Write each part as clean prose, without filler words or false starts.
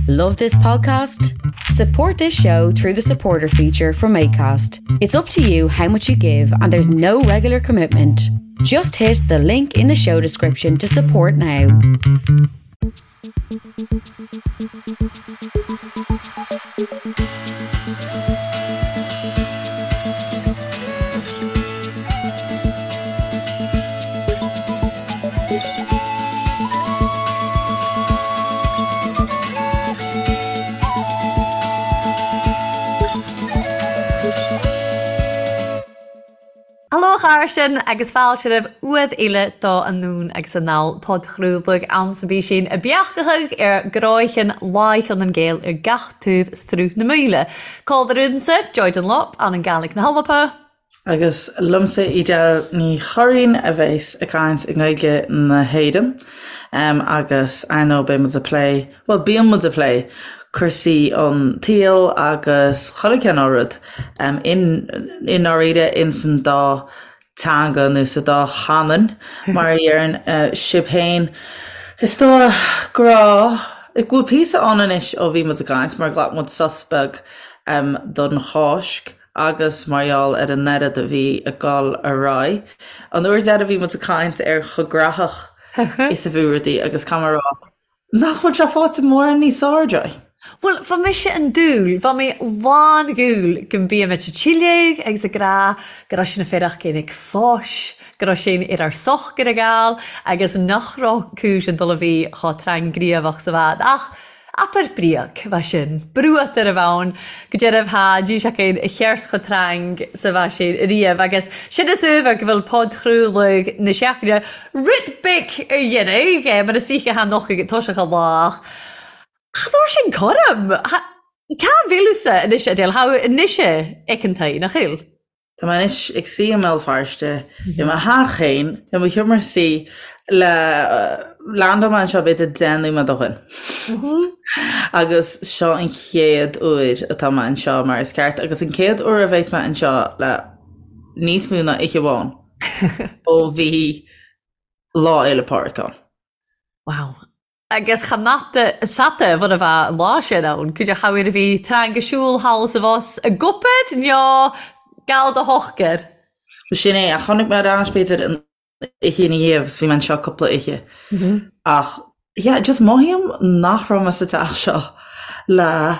Love this podcast? Support this show through the supporter feature from ACAST. It's up to you how much you give, and there's no regular commitment. Just hit the link in the show description to support now. Haló a chairde agus fáilte roimh uad eile do Anonn agus Anall, podchraoladh ann sa bpísín a beachtachaidh ar gcráicheann láicheann an Gael ar gach taobh struth na Míle. Cá bhfuil Joy Dunlop, an an Gaelic na hAlba. Agus liomsa Edel Ní Churraoin a bheas ag caint i nGaeilge na hÉireann agus ar ndóigh beidh muid ag plé, bhuel bíonn muid ag plé cúrsaí an tsaoil agus chuile chineál rud i ndáiríre ins an dá teanga nó sa dá chanúint mar a dheireann sibh féin. Is dóigh go raibh, go bhfuil píosa ann anois ó bhí muid ag caint mar ghlac muid sos beag don Cháisc. agus mar gheall ar an oiread a bhí ag dul ar aghaidh. An uair deiridh bhí muid ag caint ar chomh graitheach is a bhí rudaí agus caithfidh mé a rá nach bhfuil sé faighte mórán níos fearr, Joy. Bhuel, bha mise an dúil, bha mi lán dhúil gun bímid a' tsilleadh agus ag rá go raibh sinn a' féarach ag fáis, go raibh sinn ar ár sochar ag gabháil agus nach raibh cúis an dul a bhí chomh tráthghníomhach 's a bhad. Ach Abair bríoc, bha sin, brúat ar a bhonn, go deireadh tha díseachain a cheirs cho trang 's a bha sin riamh, agus sin is uabhar go bhfuil podchraoladh na seachtaine rud beag ar dheireadh, mar is oíche tha noch ag toiseach a lá, ach cha dtabhair sin cothrom! Cá bhfuil thusa anois, Edel? Tha thu anois aiceanta, nach eil? Tá mé anois ag suí i mBéal Feirste, i mo theach féin, i mo sheomra suí, le landáil mé anseo b'fhéidir 10 nóiméad ó shin. Agus seo an chéad uair atá mé anseo mar is ceart, agus an chéad uair a bheas mé anseo le níos mó ná oíche amháin ó bhí Lá Fhéile Pádraig ann. Wow. Agus cha mata sata bhun a bha an lá sin ann, cuid a chabhair a bhí trang a siúl thall is abhus ag obair nó gal do shochar. Bhuel sin é, ach tháinig mé ar ais b'fhéidir an oíche ina dhiaidh agus bhí mé anseo cúpla oíche. Ach yeah, just mothaím nach raibh mé sa teach seo le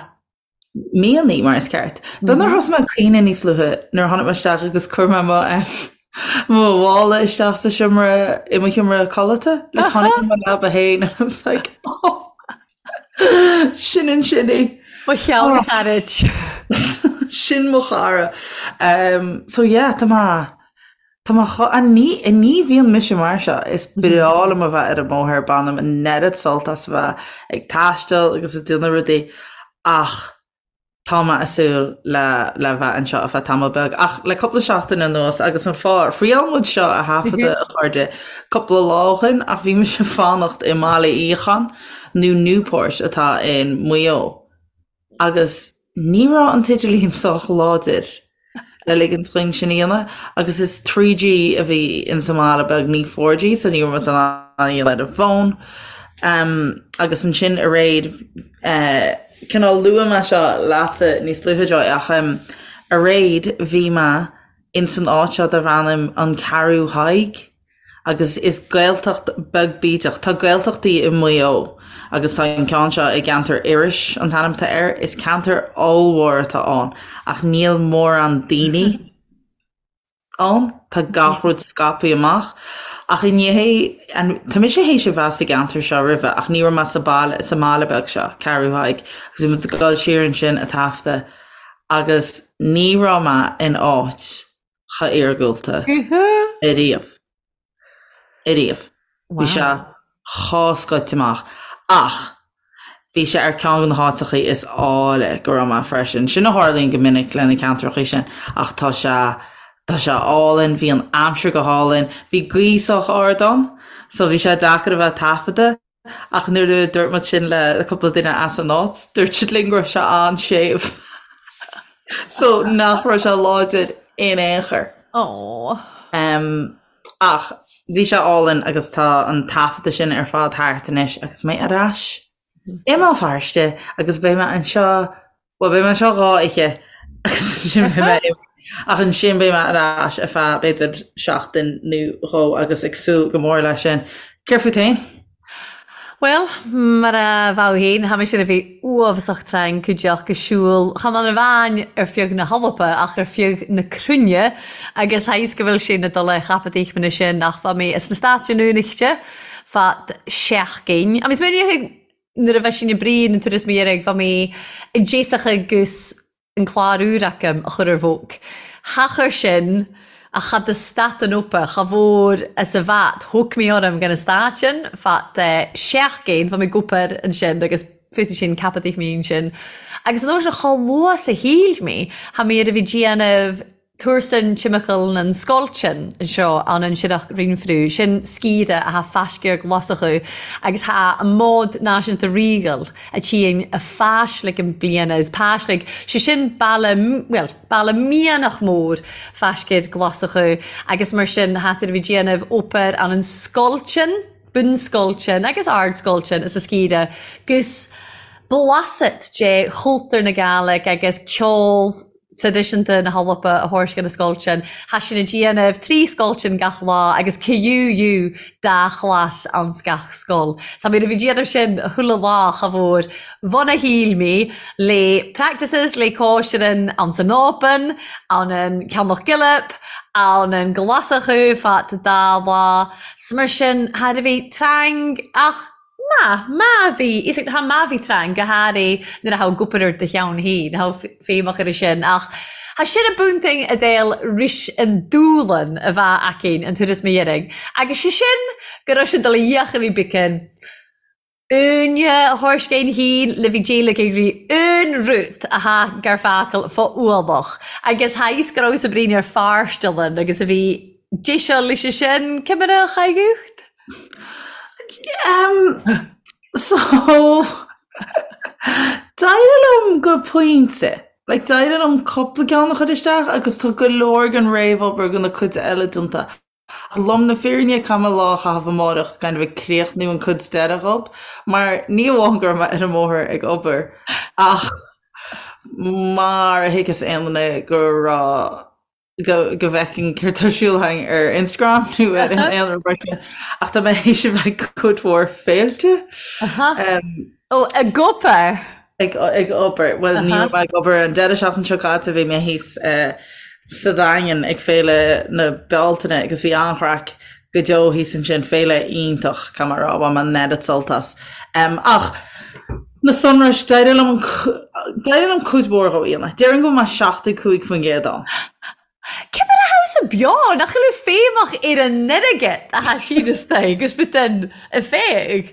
míonna, mar is ceart. B'fhéidir thosaigh mé ag caoineadh níos luaithe nuair a tháinig mé isteach agus chuir mé mo mo mhála isteach sa seomra i mo sheomra codlata like tháinig mo leaba féin and I was like oh sin ansin í. Mo cheann charaid. Sin mo chara. Um, so yeah, tá mé Tá mé cho, a ní, ní bhíonn mise mar seo, is breá liom a bheith ar an mbóthar, bainim an oiread sult as a bheith ag taisteal agus ag déanamh rudaí ach tá mé ag súil le, le bheith anseo ar feadh tamall beag. Ach le cúpla seachtain anuas agus an fáth, thriail muid seo a thaifeadadh a chairde cúpla lá ó shin ach bhí mise ag fanacht i mBaile Fhiacháin nó Newport atá in Maigh Eo. Agus ní raibh an t-idirlíon sách láidir le ligint dhúinn sin a dhéanamh, agus is 3G a bhí in sa mbaile beag, ní 4G, so ní raibh muid in ann a dhéanamh ar an bhfón. Agus ansin aréir, cineál luaigh mé seo leatsa níos luaithe Joy, ach aréir bhí mé in san áit seo darb ainm An Ceathrú Thaidhg. Agus is Gaeltacht beag bídeach. Tá Gaeltachtaí i Maigh Eo agus tá an ceann seo i gceantar Iorrais an t-ainm atá air. Is ceantar ollmhór atá ann ach níl mórán daoine ann. Tá gach rud scaipthe amach. Ach inné, tá mise théis a bheith sa gceantar seo roimhe ach ní raibh mé sa baile, sa mbaile beag seo, Ceathrú Thaidhg, agus bhí muid ag dul siar ansin ag taifeadadh agus ní raibh mé in áit chomh iargúlta ariamh. Ariamh. Bhí sé chomh scoite amach. Ach bhí sé ar ceann de na háiteachaí is áille go raibh mé freisin. Sin a tharlaíonn go minic le na ceantrachaí sin. Ach tá sé, tá sé álainn, bhí an aimsir go hálainn, bhí gaoth sách ard ann, so bhí sé deacair a bheith ag taifeadadh. Ach nuair a dúirt muid sin le cúpla duine as an áit, dúirt siad linn go raibh sé an-séimh. So nach raibh sé láidir in aon chor. Aww. Um, ach bhí sé álainn agus tá an taifeadadh sin ar fad thart anois agus mé ar ais. i mBéal Feirste agus beidh mé anseo, bhuel beidh mé anseo 2 oíche agus ansin beidh mé imithe ach ansin beidh mé ar ais ar feadh b'fhéidir seachtain nó dhó agus ag súil go mór leis sin. Céard fút féin? Bhuel, mar a bheadh féin, tha mise a bheith uabhasach trang cuideachd ag siubhal, chan amháin ar feadh na h-Alba ach ar feadh na cruinne agus tha fhios go bhfuil sé na dul chapad aochmanna sin ach bha mé as na Stáit Aontaithe fad seachdain. Agus mé nuair a bheith sin i brí na turas mo dheirg bha mé i dtéasach agus an clár úr agam a chur ar bhóc. Cha chuir sin ach cha do stat an opa, cha mhór as a bhat, thóg mé orm gan an stát sin, fad seachdain, bha mé ag obair ansin agus fúthu sin ceapadh mé ansin. Agus an uair sin chomh luath 's a shíl mé, tha mé ar a bhí déanamh Túrsan timcheall nan scoilt-sin anseo ann an Sireach Rinfriú, sin scíre athá faiscéar Glaschú agus thá an mbád náisiúnta Regal a tchíonn a pháislig an bliana is páislig, sé sin baile, bhuel, baile mianach mór faiscéar Glaschú agus mar sin thá tar a bhí déanamh obair ann an scoilt-sin, bunscoilt-sin agus ardscoilt-sin is a scíre gus blasat de chultúr na Gàidhlig agus ceol traidisiúnta na hAlba a thabhairt go na scoilt sin. Thá sinn ag déanamh 3 scoilt sin gach lá agus QUU dá chlas anns gach scoil. So nuair a bhí déanamh sin chuile lá cha mhór bhun a shíl mé le practices le cóisirean anns an Oban, ann an Ceannach Gilip, ann an Glaschú fad dá lá. 'S mar sin thar a bheith trang ach Má, má bhí, is ag, má bhí trang, go háirithe nuair a tha obair ar do cheann féin, tha feidhmeach air sin, ach tha sin a bunting a d'fheil ris an dúlan a bha againn an turas mo dheiridh, agus sé sin go raibh sin dul a fhiachair beacán uaine a thabhairt féin le bhí d'éiligh ag rí aon rud a tha gar focal fá ualach, agus tha fhios go raibh sa bhraon ar fearstealann agus a bhí deiseal leis sin, cimire a chailleadh. Um, so, d'éirigh liom go pointe. Like, d'éirigh liom cúpla ceann a chur isteach agus tá go leor den réamhobair go na cuid eile déanta. Ach lom na fírinne caithfidh mé lá a chaitheamh amárach kind of ag críochnú an cuid deireadh dhób, mar ní amháin go raibh mé ar an mbóthar ag obair ach mar a thuigfeas aon duine go raibh go go bhfeicfinn céard tá ar siúl againn ar Instagram nó ar aon rud mar sin ach tá mé théis a bheith ag cuid mhór féilte. Ó, ag obair? Ag ag obair. Bhuel ní raibh mé ag obair an deireadh seachtaine seo caite bhí mé thíos sa Daingean ag Féile na Bealtaine agus bhí an-chraic go deo thíos ansin, féile iontach, caithfidh mé a rá, bhain mé an oiread sult as. Ach na sonrais, d'éirigh liom an, d'éirigh liom cuid mhór dhó a dhéanamh. Déarfainn go bhfuil mé 75% ann. Cé mar a tha thusa beo, nach bhfuil feidhmeach ar an airgead a tha siad istigh agus fút an a féigh?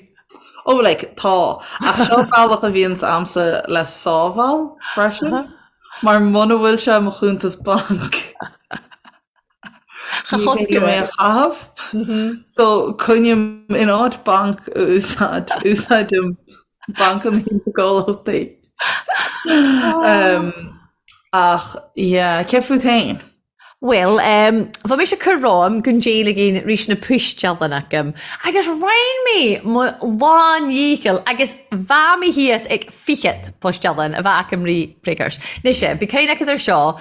Oh like, tá. Ach seo bealach a bhíonns a'msa le sábháil freisin, mar muna bhfuil sé i mo chuntas bainc, Cha chosc mé a chaitheamh. So coinním in áit banc a úsáid, úsáidim bancanna na gcomhlachtaí. Ach yeah, céard fút féin? Bhuel, bha mise ag cur romham gun d'éiliginn rís na poistealann agam, agus rinn mé mo lán-dhícheall agus bha mé thíos ag fichead poistealann a bha agam ri précars. Mise, bhí cuimhne acu air seo,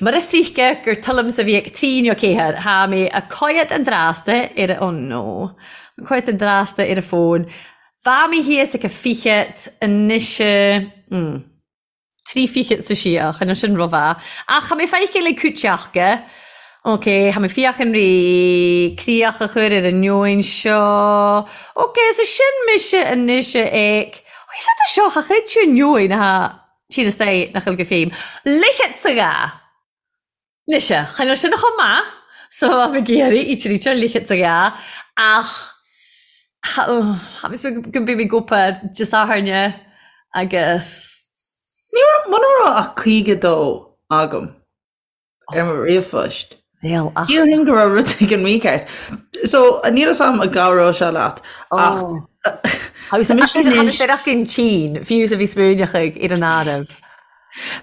Mar is tuigthe gur tuilleamsa bhí ag trí nó ceathair, tha mé a coigead an drásta ar a, oh no, a coigead an drásta ar a fón. Bha mé thíos ag a fichead anois, mm, trí fichead sa siar, chan eil sin ro-mhath. Ach tha mé feicthe le cúiteachga. Ok, tha mé fiachan ri críoch a chur ar an neoin seo. Ok, so sin mise anois ag, oh, is é seo, cha chreid tú an neoin atá Tír is dé nach bhfuil go féim. Ligead sa ghá! Mise, chan eil sin chomh maith so am ag iarraidh í tríd ligead sa ghá ach tha go mbeidh mé ag obair Dé Sathairne agus. Ní raibh, muna raibh ach 52 agam. ar mo ríomhphost. Níl ach. Shílfinn go raibh rud éigin mícheart. So, níl fhios a'm an gcabhróidh sé leat ach Tá mise anois. Tá ach an tSín, fiú is a bhí smaoineach ag ar an áireamh.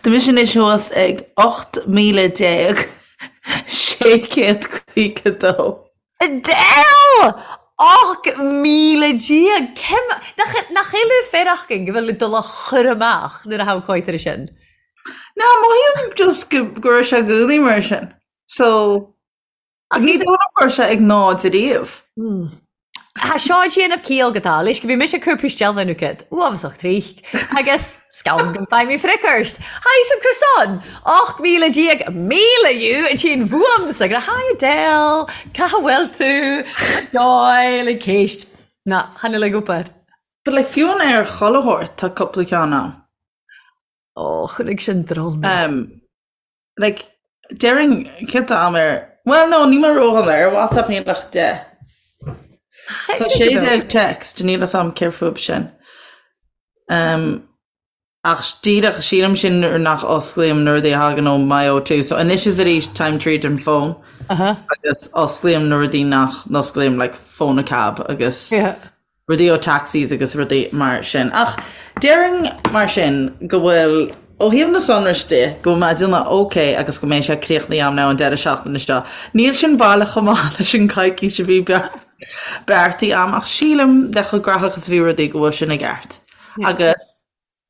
Tá mise anois thuas ag 18,652. Adele! 18,000! Cim, nach, nach eile féarachgain go bhfuil dul a chur amach nuair a thabhcóidhtear sin? Ná, mothaím just go, go raibh sé i gcónaí mar sin. So, ní dóigh liom go raibh sé ag náid ariamh. Tá seo ag déanamh ciall go tá, leis go bhí mise ag cur puistealbha nó cad, uafásach trích, agus scann go bhfaighidh mé fricorst. Hi some croissant! 18,000 míle you an tSín bhuamsa go Hi Adele, cá bhfuil tú? Joy le céist. Ná, chan fhuil ag obair. But like fiú an ar chuile shórt tá cúpla ceann ann. Ó, chonaic sin drol mé. Um, Like, déarfainn céard tá agam ar, bhuel no, níl mé ródhona, ar WhatsApp níl ach 10. Tá 16 text, níl fhios a'm céard fúb sin. Um, ach díreach sílim sin nuair nach osclaím na rudaí a thagann ó my O2. So anois is arís táim tríd an fón uh -huh. agus osclaím na rudaí nach n-osclaím like phone a cab agus yeah. rudaí ó taxis agus rudaí mar sin. Ach déarfainn mar sin go bhfuil, ó thaobh na sonrais de, go bhfuil mé ag déanamh ok agus go mbeidh sé críochnaithe agam now an deireadh seachtaine seo. Níl sin baileach chomh maith leis an coicís a bhí beartaithe agam ach sílim le chomh graitheach is a bhí rudaí go bhfuil sin i gceart. Agus.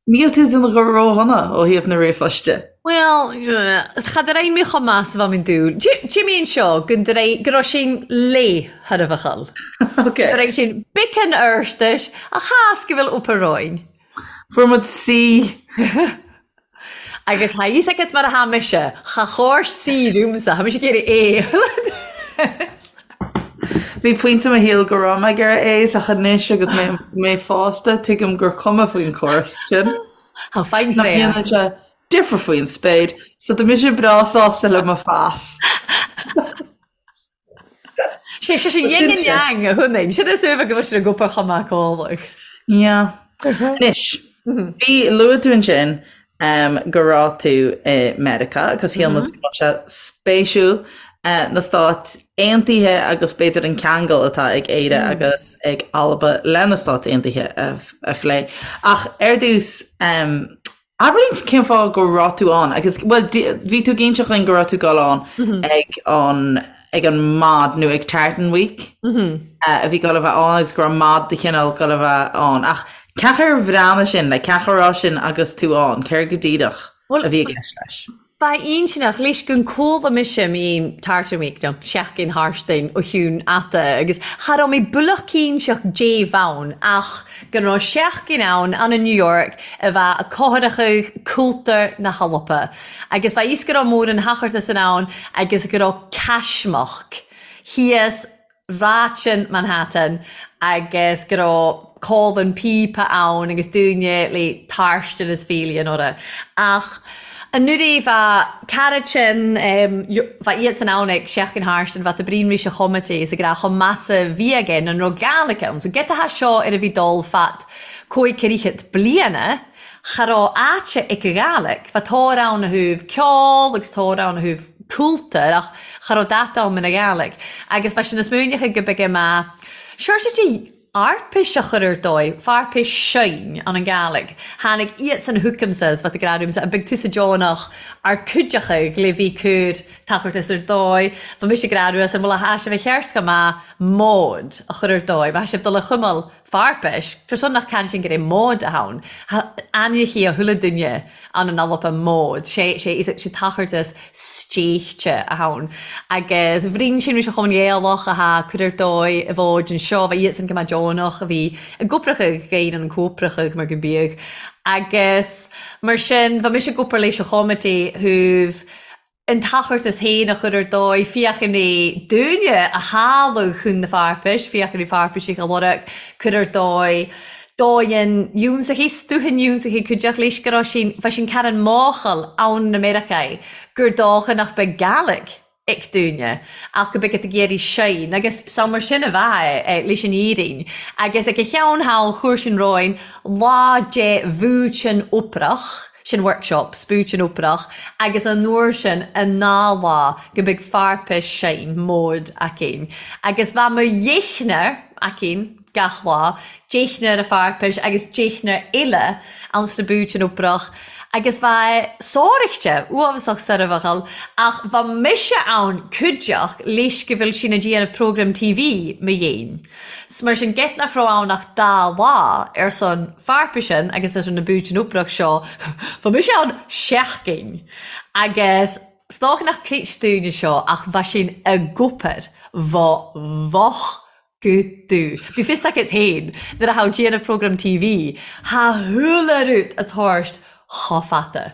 Níl tú ag déanamh go ródhona ó thaobh na ríomhphoist de. Bhuel, cha d'fhreagair mé chomh maith 's a bha mi an dule. Jimmy anseo go ndreigh, go raibh sin léith thar a bhachall. Ok. Go raibh sin biceann oirstis a chás go bhfuil up a roinn. Fuair muid C. Agus tha fhios agat mar a tha mise, cha chóir C riumsa, tha mise ag iarraidh A. Bhí pointe i mo shaol go raibh mé ag iarraidh A's ach anois agus mé mé fásta tuigim gur cuma faoin chóras sin. Tá fine Nach ndéanann sé difear faoin spéir, so tá mise breá sásta le mo phas. Sé sé sin yin and yang a thunainn. Sin is uaimhe go bhfuil sin ag obair chomh maith cólaigh. Yeah. Anois, bhí luaigh tú ansin go raibh tú i Meiriceá agus shíl muid go mbeadh sé spéisiúil na Stáit Aontaithe agus b'fhéidir an ceangal atá ag Éire agus ag Alba le na Stáit Aontaithe a phlé. Ach ar dtús, abair linn cén fáth go raibh tú ann agus, bhuel, bhí tú ag inseacht dhúinn go raibh tú ag dul ann ag an ag an Mod nó ag Tartan Week a bhí ag dul a bheith ann agus go raibh Mod de chineál ag dul a bheith ann. Ach cén chaoi ar bhreathnaigh sin, like, cén chaoi a raibh sin agus tú ann, céard go díreach a bhí i gceist leis? Ba intinneach leis gun cuala mise mín Tartan Week nó Seachtain Thartain ó Chiúin Ata agus cha raibh mé builleach cinnteach dé bhonn ach go raibh seachtain ann ann i New York a bheadh a cothrachadh cúltar na hAlba agus bheadh fhios go raibh mórán hachartas in ann agus go raibh caismeach thíos Ráiteann Manhattan agus go raibh cólann píopa ann agus dúine le tairstin is fíli an orra. Ach anuraidh bha cara sin, bha iad san ann ag seachtain tharstin, bha ta brín rís a chomité is ag rá chomh measa bhí aige nan raibh Gaelic ann. So get a seo ar a bhí dul fad cóig ceithre bliana, Cha raibh áite ag a Ghaelic. Bha tóir ann a thaobh ceol agus tóir ann a thaobh cúltair ach cha raibh data ann ina Ghaelic. Agus bha sin is múineach go bige ma sure de arpis a chur ar dóigh, farpis seinn an an Ghaelic. Tháinig iad san chugamsa is bha ta grá an big tusa deonach ar cuideachadh le bhí cur tachartas ar dóigh. Bha mise grá an bhfuil a tha sibh a chearska ma mód a chur ar dóigh. Bha sibh dul a chuimil Farpais, gur son nach can sin gur é mód a ann. Ainmhithe a thuile duine ann an Alba mód, sé sé is sé tachartas stéichte a ann. Agus bhrín sin ris a chum Ghaelach a tha cur ar dóigh i bhfóid anseo, bha iadsan go maith deonach a bhí i gcopracha gain an cópracha mar go mbíodh. Agus mar sin, bha mise ag obair leis a chomité thaobh an tachartas féin a chur ar dóigh, féachaint é dúinne a tháladh chun na farpais, féachaint é farpaisich a lorg, cur ar dóigh, dóigheann iúnsachaí, stúthann iúnsachaí cuideach leis go raibh sin, bha sin Karen máchail ann na Meiriceáí gur dócha nach beidh Gaelic ag dúinne ach go beidh ag iarraidh sein agus so mar sin a bheadh é leis an fhírinn agus ag a cheann thall chuir sin romhainn lá de bhuaitean oprach sin workshop, spúitean oprach, agus an uair sin an ná lá go mbeidh farpais sein mód againn. Agus bha mo dheimhnear againn. gach lá, deichniúr a pharpais agus deichniúr eile ann sna búit an oipreach agus bha sòraichte, uabhasach soirbheachal, ach bha mise ann cuideachd leis go bhfuil sinn a' dìanamh programm TV mo dhéin. 'S mar sin geit nach raibh ann ach dá lá ar son pharpaisean agus ar son na búit an oipreach seo, bha mise ann seachdain agus 's dòcha nach cleite dúinne seo ach bha sinn ag obair, bha bhoch go dubh. Bhí fios agat féin, nuair a tha thu déanamh programm TV, tha chuile rud a' tàrst cho fada.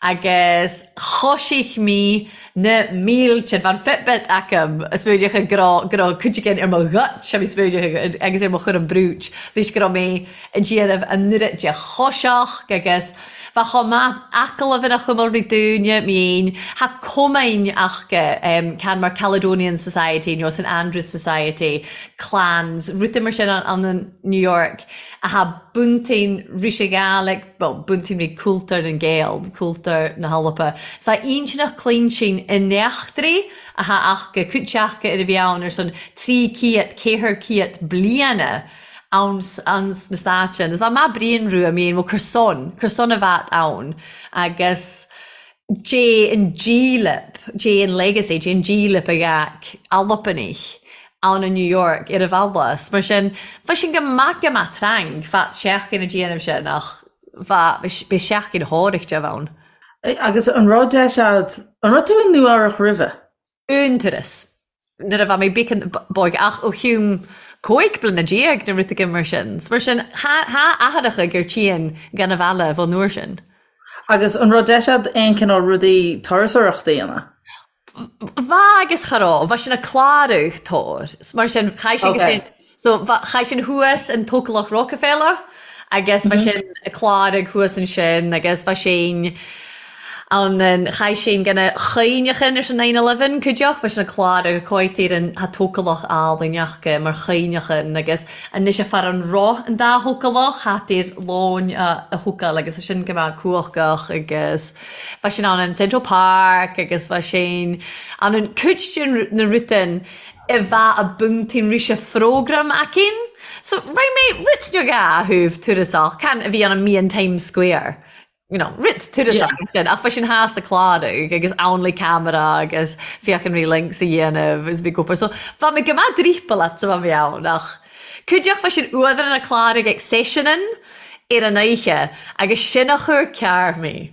Agus choisigh mé na mílte, bha an Fitbit agam, a' smaoineachadh go raibh, go raibh cuid again ar mo ghuit, a bhí smaoineachadh agus ar mo chúram brúid, leis go raibh mé a' déanamh an oiread de choiseach agus bha chomh maith agallamh ina chumail ri dúinne, mé fhéin, tha cumainn aca, can mar Caledonian Society nó St Andrews Society, clans, rudaí mar sin ann in New York a tha buntain ris a' Ghàidhlig, bhuel, buntain ri cúltur nan Gàidheal, cúltur na h-Alba. 'S bha inntinneach cluintin an eachtraidh a tha aca, cuid aca ar a bhí ann ar son 300, 400 bliana ann sna Stáit. Is bha math bruidhinn rua, I mean, bhuel, cur son, cur son a bheat ann agus dè an dílip, dè an legacy, dè an dílip a gheadh Albanaich ann i New York ar a bhealach. Mar sin, bha sin go maith go maith trang fad seachdain a' dìanamh sin ach bha, bith seachdain shòraichte a bh' ann. Agus an raibh deis a'd, an raibh tú i Nua Eabhrach roimhe? Aon turas. Nuair a bha mé beagan b'óige ach ó chiúm 15 bliana nó rud éigin mar sin. 'S mar sin, tha athaireacha gur tchíonn gan a bhealach ón uair sin. Agus an raibh deis a'd aon cineál rudaí turasóireachta a dhéanamh? Bha agus cha raibh. Bha sinn a' clàradh tor. 'S mar sin, chaith sinn go sin. So bha, chaith sinn thuas in Tócalach Rockefeller agus bha sinn a' clàradh thuas ansin agus bha sinn ann in, chaith sinn gan a chuimhneachan ar son 9/11 cuideachd, bha sinn a' clàradh a cóitir an tha Tócalach àlainn aca mar chuimhneachan agus anois a far an roth an dá Thócalach thart ar lóin a a thócáil agus sin go maith cumhachach agus bha sinn ann in Central Park agus bha sinn ann in cuid de na rudain a bha a buntain rise phrógram aicinn. So raibh mé rud beag a thabh turasach, can a bhí ann i mí an Times Square, you know, rud turasach yeah. sin, ach bha sinn theas a' clàradh agus ann le camera agus féachann ri links a dhéanamh is bhí obair. So bha mé go maith drípealach sa bha mé ann ach cuideachd bha sin uadhar an clàradh ag seiseanan ar an oíche agus sin a chuir cearr mé.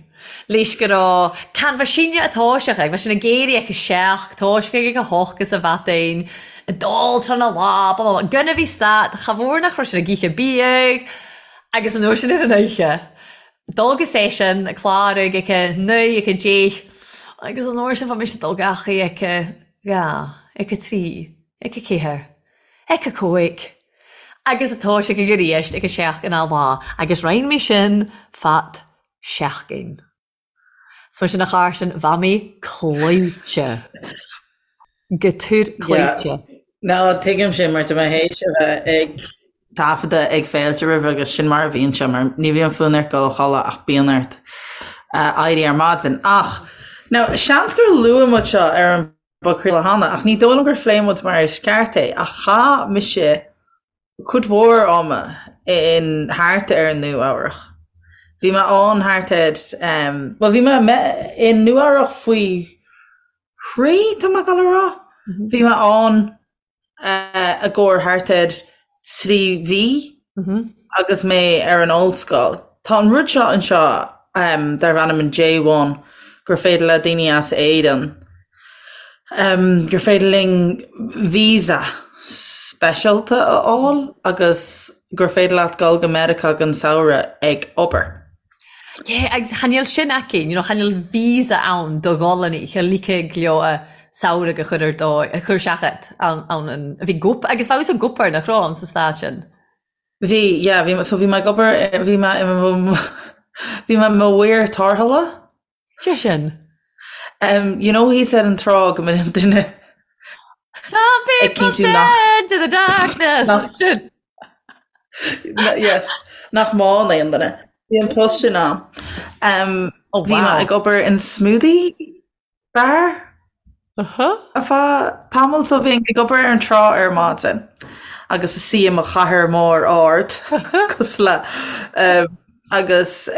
Leis go raibh can bha sinne a' toiseach ag, bha sinn ag éirí ag a seacht, toiseach ag a hocht is a bheadain, ag dul tráth na lá, blah blah blah, gan a bhí stad, cha mhór nach raibh sin ag ithe biadh agus an uair sin ar an oíche, dul go seisean, ag clárú ag a naoi, ag a deich, agus an uair sin bha mise ag dul gach oíche ag a dhá, ag a trí, ag a ceathair, ag a cúig, agus a toiseach ag aríst ag a seacht an lá agus roinn mé sin fad seachdain. 'S mar sin a Charson, bha mé cloíte. Go tur cloíte. No, tuigim sin mar tá mé théis a bheith ag taifeadadh ag féilte roimhe agus sin mar a bhíonn sé mar ní bhíonn fonn ort dul a chodladh ach bíonn ort éirí ar maidin. Ach, now, seans gur luaigh muid seo ar an bpodchraoladh cheana ach ní dóigh liom gur phléigh muid mar is ceart é ach chaith mise cuid mhór ama in thart ar Nua Eabhrach. Bhí mé ann thart ar, bhuel bhí mé i Nua Eabhrach faoi thrí, tá mé ag dul a rá. Bhí mé ann i gcomhair thart ar 3 mhí agus mé ar an ollscoil. Tá an rud seo anseo darb ainm an J1 gur féidir le daoine as Éirinn gur féidir linn visa speisialta a fháil agus gur féidir leat dul go Meiriceá don samhradh ag obair. Yeah, agus chan eil sin aici, you know, chan eil visa ann do dhul-annaich, a ligfeadh leo a samhradh a chur ar dóigh, a chur isteach ann, ann, an, a bhí gup, agus bheadh an gup air nach raibh ann sa stát sin. Bhí, yeah, bhí, so bhí mé ag obair, bhí mé i mo, bhí mé i mo mhaor tarrthála. Sé sin. Um, you know thíos ar an trá go mbíonn duine Some people stare into the darkness. Nach, Sin. yes, nach mbánn aon duine. Bhí an post sin ann. Um, Oh, bhí mé wow. ag obair in smoothie bar Uh-huh. ar feadh tamall so bhínn ag obair ar an trá ar maidin. agus is í i mo chathaoir mór ard cosúil le agus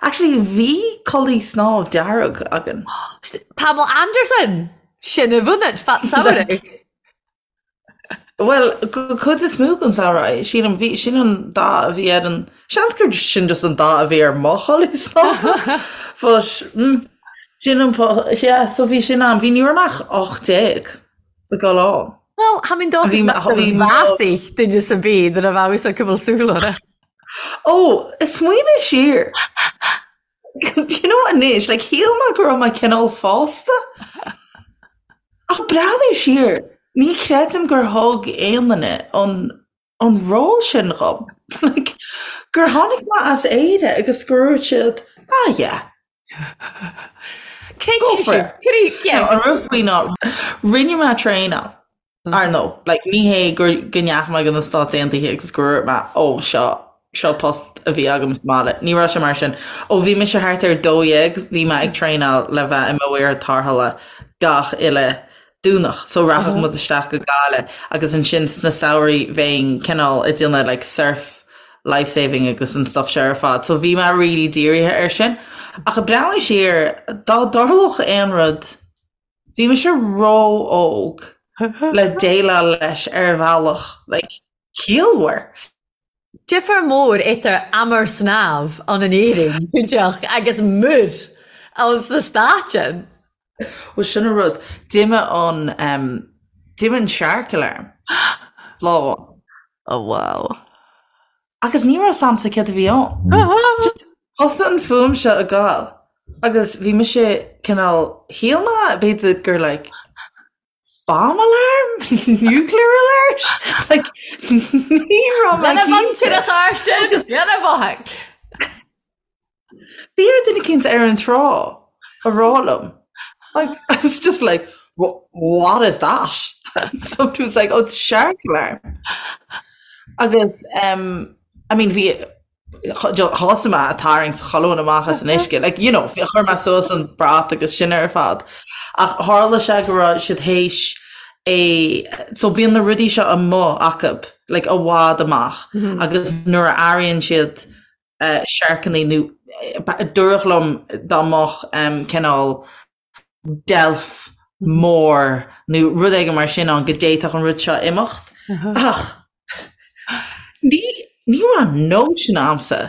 actually bhí culaith snámh dearg againn. Pamela Anderson! Sin a bhunad fat samhradh. Bhuel, cuid is mó den samhradh, sílim, bhí, sin an dath a bhí ar an, seans gur sin just an dath a bhí ar mo chulaith snámha. But, mm, sin an, yeah, so bhí sin ann. Bhí, ní raibh mé ach 18 ag dul ann. Bhuel, tha minn dòchas nach bheadh duine sa bith nuair a bheadh fhios acu bhfuil súil orthu. Ó, smaoinigh siar. Do you know anois, like, shíl mé go raibh mé cineál fásta. Ach breathnú siar, ní chreidim gur thug aon duine an, an ról sin dhom. Like, gur tháinig mé as Éire agus gur dhúirt siad, ah yeah. Creid Go for it. Creid, yeah. An rud faoi ná, rinne mé traenáil. Ar ndóigh, like, ní hé gur go ndeachaigh mé go na Stáit Aontaithe agus gur dhúirt mé, ó, seo, seo post a bhí agam sa mbaile. Ní raibh sé mar sin. Ó bhí mise thart ar 12, bhí mé ag traenáil le bheith i mo mhaor tarrthála gach uile Domhnach. So rachadh muid isteach go Gaillimh agus ansin sna samhraí bheinn cineál ag déanamh like surf life saving agus an stuff seo ar fad. So bhí mé really dírithe air sin. Ach ag breathnú siar, dá dtarlódh aon rud, Bhí mise ró-óg le déileáil leis ar bhealach like ciallmhar. Difear mór idir am air snámh ann in Éirinn, cinnteach, agus muir ann sna Stáit. Bhuel sin an rud, d'imigh an em d'imigh an shark alarm lá amháin. Oh wow. Agus ní raibh 's a'msa céard a bhí ann. Just thosaigh an fuaim seo ag gabháil agus bhí mise cineál, shíl mé b'fhéidir gur like bomb alarm? Nuclear alert? Like ní raibh mé cinnte. Lena bhothaigh. Bhí ar duine eicínt ar an trá a rá liom. Like, I was just like, what is that? Somebody was like, oh, it's shark alarm. Agus, um, I mean, bhí thosaigh mé ag tarraingt chuile dhuine amach as an uisce. Like, you know, chuir mé suas an brat agus sin ar fad. Ach tharla sé go raibh siad théis é, so bíonn na rudaí seo amuigh acu, like, i bhfad amach. Agus nuair a airíonn siad siorcannaí nó dúradh liom dá mbeadh cineál deilf mór nó rud éigin mar sin ann go d'fhéadfadh an rud seo imeacht. Ach ní ní raibh notion a'msa.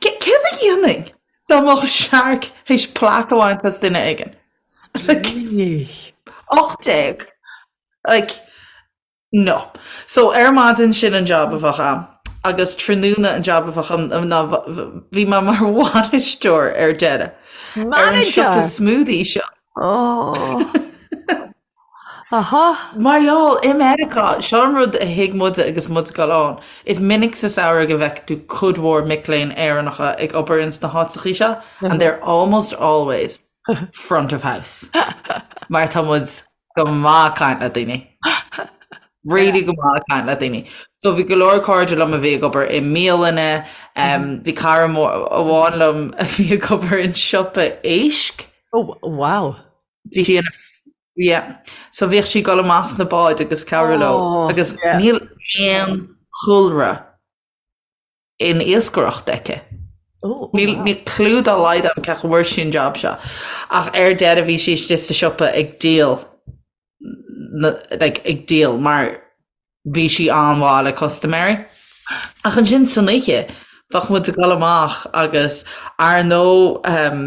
Céard a dhéanfainn dá mbeadh shark théis plaic a bhaint as duine éigin? Like, 18. Like, No. So ar maidin sin an job a bheadh a'm agus tráthnóna an job a bheadh a'm ná bhí mé mar bhainisteoir ar deireadh ar an siopa smoothie seo. Oh. Aha. Mar gheall, i Meiriceá, seo an rud a thuig muide agus muid ag dul ann, is minic sa samhradh go bhfeiceann tú cuid mhór mic léinn Éireannacha ag obair ins na háiteachaí seo and they're almost always front of house. Mar tá muid go maith ag caint le daoine. Really go maith ag caint le daoine. So bhí go leor cairde liom a bhí ag obair i mbialanna, bhí cara amháin liom a bhí ag obair in siopa éisc. Oh, wow. Bhí sí ina yeah. So bhíodh sí ag dul amach sna báid agus cabhrú leo oh, agus yeah. níl aon chúlra in iascaireacht aici. Níl níl clue dá laghad agam cén chaoi a bhfuair sí an job seo. Ach ar deireadh bhí sí istigh sa siopa ag díol like ag díol mar bhí sí an-mhaith le custaiméirí. Ach ansin san oíche bheadh muid ag dul amach agus ar ndóigh ehm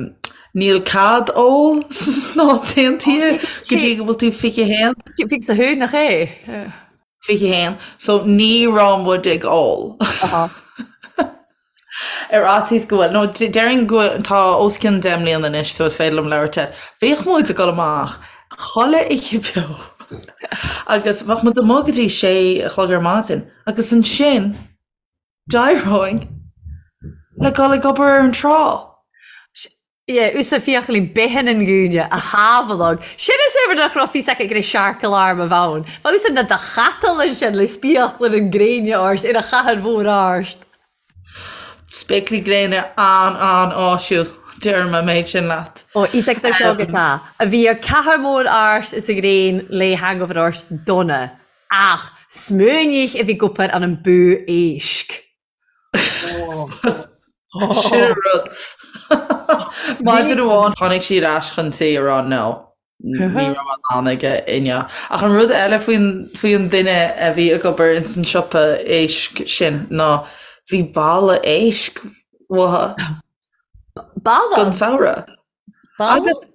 níl cead ól sna Stáit Aontaithe go dtí go bhfuil tú 21. 21 nach é? 21, so ní raibh muid ag ól. Ar fhaitíos go bhfuil, nó déarfainn go bhfuil, tá os cionn 10 mbliana anois so is féidir liom labhairt air. Bhíodh muid ag dul amach chuile oíche beo agus bheadh muid amuigh go dtí sé a chlog ar maidin agus ansin d'éireoinn le dul ag obair ar an trá. Yeah, usa fiachaillí bithin an gúine a shábhaladh. Sin is uimhir nach raibh fhios aici go raibh shark alarm a bheith ann. Bheadh usa na do chatal ansin le spéaclaí an gréine ort ar a chathair mhór ort. Spéaclaí gréine an-an-áisiúil, deirim an méid sin leat. Ó, fhios agat ar seo go tá. A bhí ar cathair mhór ort is a ghréin le hangover ort dona. Ach smaoinigh a bhí ag obair an an bú éisc. Sin an rud. Maidin amháin tháinig sí ar ais chun tí a rá no. Ní raibh mé in ann aige inniu. Ach an rud eile faoin faoin duine a bhí ag obair ins an siopa éisc sin ná bhí balla éisc uathu. Balla? Don samhradh. Agus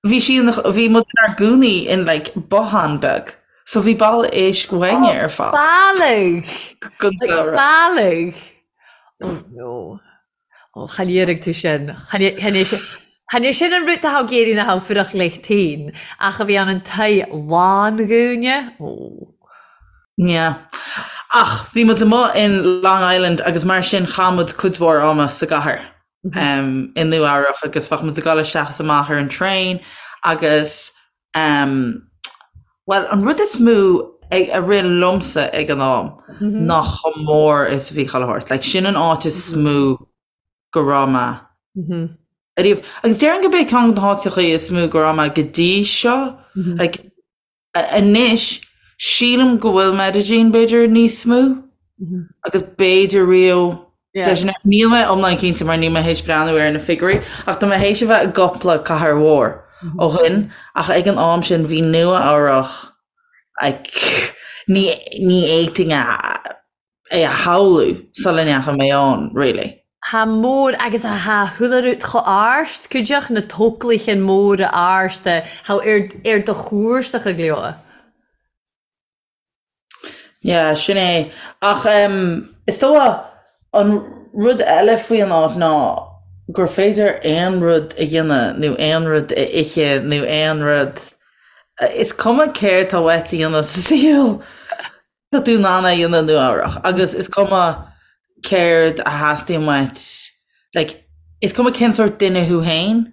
bhí sí ina, bhí muid inár gcónaí in like bothán beag. So bhí balla éisc uainne ar fad. Fallaing! Don samhradh. Fallaing! Oh no. Oh, chan iarraidh tú sin. Chan é sin, chan é sin an rud atá ag iarraidh ná fuireach leis féin, ach a bhí ann an toigh lán-dhúine. Oh. Yeah. Ach bhí muid amuigh in Long Island agus mar sin chaith muid cuid mhór ama sa gcathair. i Nua Eabhrach agus bheadh muid ag dul isteach is amach ar an traein agus bhuel an rud is mó a rith liomsa ag an am ná chomh mór is a bhí chuile shórt. Like sin an áit is mó go raibh mé ariamh. Agus déarfainn gurb é ceann de na háiteacha is mó go raibh mé go dtí seo. Like Anois, sílim go bhfuil Medellín b'fhéidir níos mó agus b'fhéidir Rio de Janeiro. Níl mé iomlán cinnte mar níl mé théis breathnú ar na figiúirí ach tá mé théis a bheith i gcúpla cathair mhór ó shin ach ag an am sin bhí Nua Eabhrach like ní ní fhéadfainn a é a shamhlú sula ndeachaigh mé ann, really. Tha mór agus tha chuile rud cho ard, cuideachd na tóclaighean móra arda tha ar ar do chúrsacha go leor. Yeah, sin é. Ach em, is dócha an rud eile faoi an áit ná gur féidir aon rud a dhéanamh nó aon rud a ithe nó aon rud, is cuma céard tá uait a dhéanamh sa saol, Tá tú in ann é a dhéanamh i Nua Eabhrach agus is cuma céard a theastaíonn uait, like, is cuma cén sórt duine thú féin,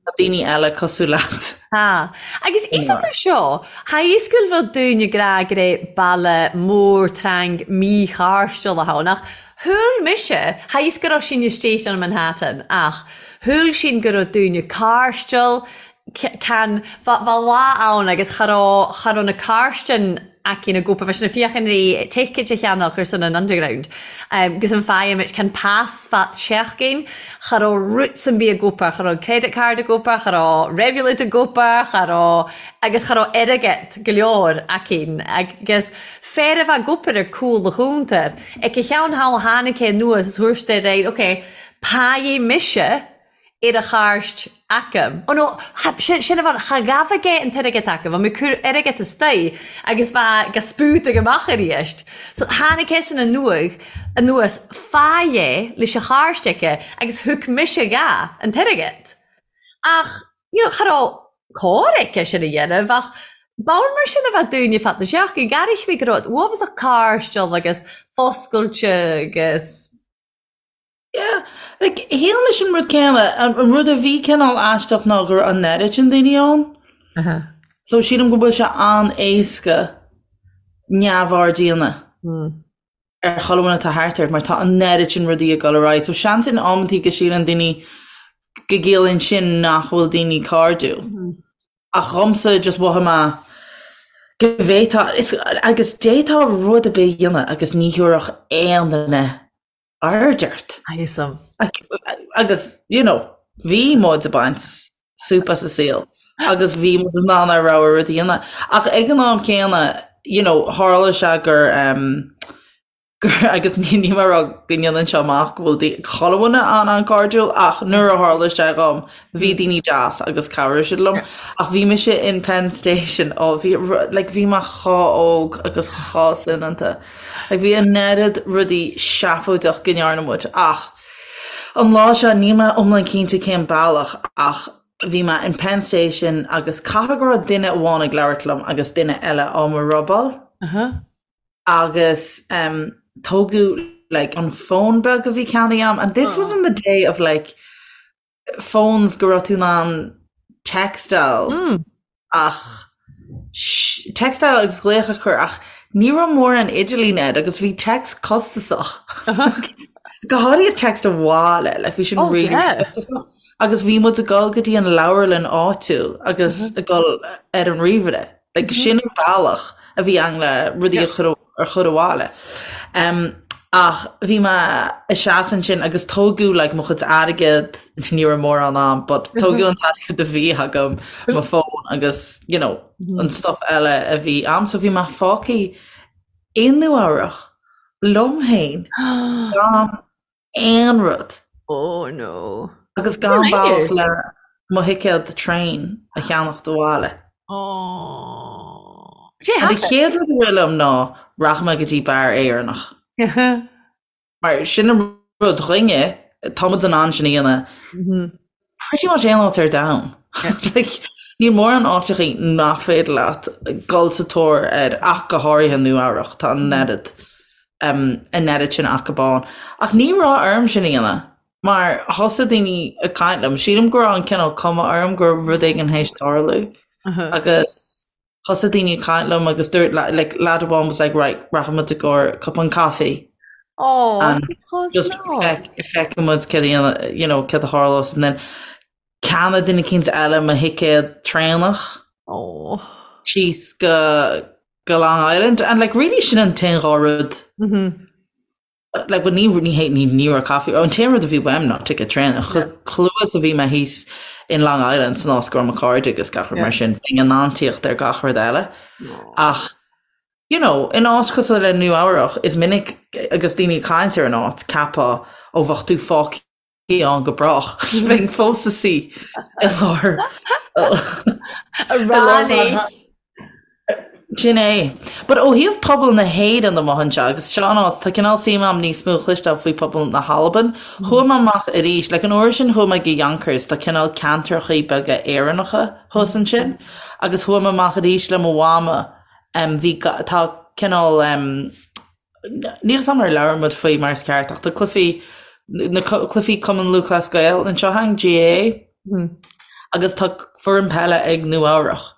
tá daoine eile cosúil leat. Tá. Agus is idir seo, tha a fhios gu bheil daoine ag ràdh gur e baile mòr trang mí-chairdiúil a th' ann, ach shúil mise, tha a fhios gu robh sinn istigh ann Manhattan, ach shúil sinn gu robh daoine cairdiúil, Can, bha lá ann agus cha robh, cha robh na cairtean aicinn ag obair, bha sinn a' fiachain ri ticket a cheannach ar son an Underground. Gus an faighimid can pas fat seachgain, cha robh rud san bith ag obair, cha robh credit card ag obair, cha robh Revolut ag obair, cha robh, agus cha robh airgead go leor aicinn. Agus fear a bha ag obair ar cúl a chuntair, ag a cheann thall tháinig é anuas is thuairt é air, ok, paidh mise ar a chairt acu. Ó no, sin a bhean, cha ghabh aige an t-airgead acu, bha mé cur airgead istoigh agus bha ga spútaigh amach aríst. So tháinig eisean anuaidh, anuas, fá é leis a chairt aici agus thug mise dha an t-airgead. Ach, you know, cha rabh cóir aici sin a dhéanamh ach b'ann mar sin a bheadh daoine fad na seachtaine, ghearrfaidh mé go raibh uafásach cairdiúil agus foscailte agus. Yeah, like, shíl mise an rud céanna, an rud a bhí cineál aisteach ná go raibh an oiread sin daoine ann. Uh -huh. So sílim go bhfuil sé an-éasca neamhaird a dhéanamh mm. ar chuile dhuine atá thart ort mar tá an oiread sin rudaí ag dul ar aghaidh. So seans in amantaí go síleann daoine go gciallaíonn sin nach bhfuil daoine cairdiúil. Mm -hmm. Ach dhomsa just mhothaigh mé go bhféadfá, agus d'fhéadfá rud ar bith a dhéanamh agus ní thabharfadh aon duine aird ort. Awesome. Agus, you know, bhí muid ag baint súp as an saol agus bhí muid in ann ár rogha rud a dhéanamh. Ach ag an am céanna, you know, tharla sé gur, um, gur agus ní ní mar go ndéanann seo amach go bhfuil daoine, chuile dhuine an-an-cairdiúil ach nuair a tharla sé dhom, bhí daoine deas agus chabhraigh siad liom. Ach bhí mise in Penn Station, ó bhí, like, bhí mé chomh óg agus chomh soineanta. Like bhí an oiread rudaí seafóideach go ndearna muid ach an lá seo níl mé iomlán cinnte cén bealach ach bhí mé in Penn Station agus caithfidh go raibh duine amháin ag labhairt liom agus duine eile á mo robáil agus um, tógadh like an fón beag a bhí ceannaithe agam and this was in the day of like phones go raibh tú in ann textáil ach textáil agus glaoch a chur ach ní raibh mórán idirlín air agus bhí text costasach. Go háirithe text abhaile, like bhí sin Oh, really yeah. costasach. Agus bhí muid ag dul go dtí an leabharlann áitiúil agus ag dul ar an ríomhaire. Like sin an bealach. a bhí ann le rudaí a chur a chur abhaile. Ach bhí mé ag seasamh ansin agus tógadh like mo chuid airgead, ní raibh mórán a'm, but tógadh an t-airgead a bhí agam, mo phone agus you know an stuff eile a bhí a'm. So bhí mé fágtha i Nua Eabhrach liom féin gan aon rud. Oh no. Agus gan bealach le mo thicéad traein a cheannacht abhaile. Oh. An chéad rud a rith liom ná rachaidh mé go dtí beár Éireannach. Mar sin an rud dhúinne, tá muid in ann sin a dhéanamh pretty much aon áit ar domhan. Like, níl mórán áiteachaí nach féidir leat dul sa tóir air ach go háirithe Nua Eabhrach, tá an oiread an oiread sin acu ann. Ach ní raibh orm sin a dhéanamh mar thosaigh daoine ag caint liom. Sílim go raibh an cineál cuma orm go raibh rud éigin théis tarlú agus thosaigh daoine ag caint liom agus dúirt like lad amháin was like right rachaidh muid i gcomhair cupán caife Oh, and just feicfidh muid céard a dhéanamh you know céard a tharlós and then cheannaigh duine eicínt eile mo thicéad traenach Oh. síos go go Long Island and like really sin an t-aon dhá rud like but ní ní hé ní ní raibh caife an t-aon rud a bhí uaim ná ticket traenach chomh luath is a bhí mé thíos in Long Island san áit go raibh mo chairde agus gach rud mar sin bheinn in ann tíocht ar gach rud eile ach you know in áit cosúil le Nua Eabhrach is minic agus daoine ag caint ar an áit ceapfá ó bheadh tú fágtha ann go brách. Bheinn fós i suí i lár Ronnie. Sin é. But ó thaobh pobal na hÉireann amuigh anseo, agus seo an áit, tá cineál suim a'm níos mó a chloisteáil faoi pobal na hAlban. Chuaigh mé amach arís, like an uair sin chuaigh mé go Yonkers, tá cineál ceantrachaí beaga Éireannacha thuas ansin, agus chuaigh mé amach arís le mo mhama, em bhí, tá cineál em, Níl 'fhios a'm ar labhair muid faoi mar is ceart ach tá cluichí, na cluichí Cumann Lúthchleas Gael anseo againn, GAA, agus tá foireann peile ag Nua Eabhrach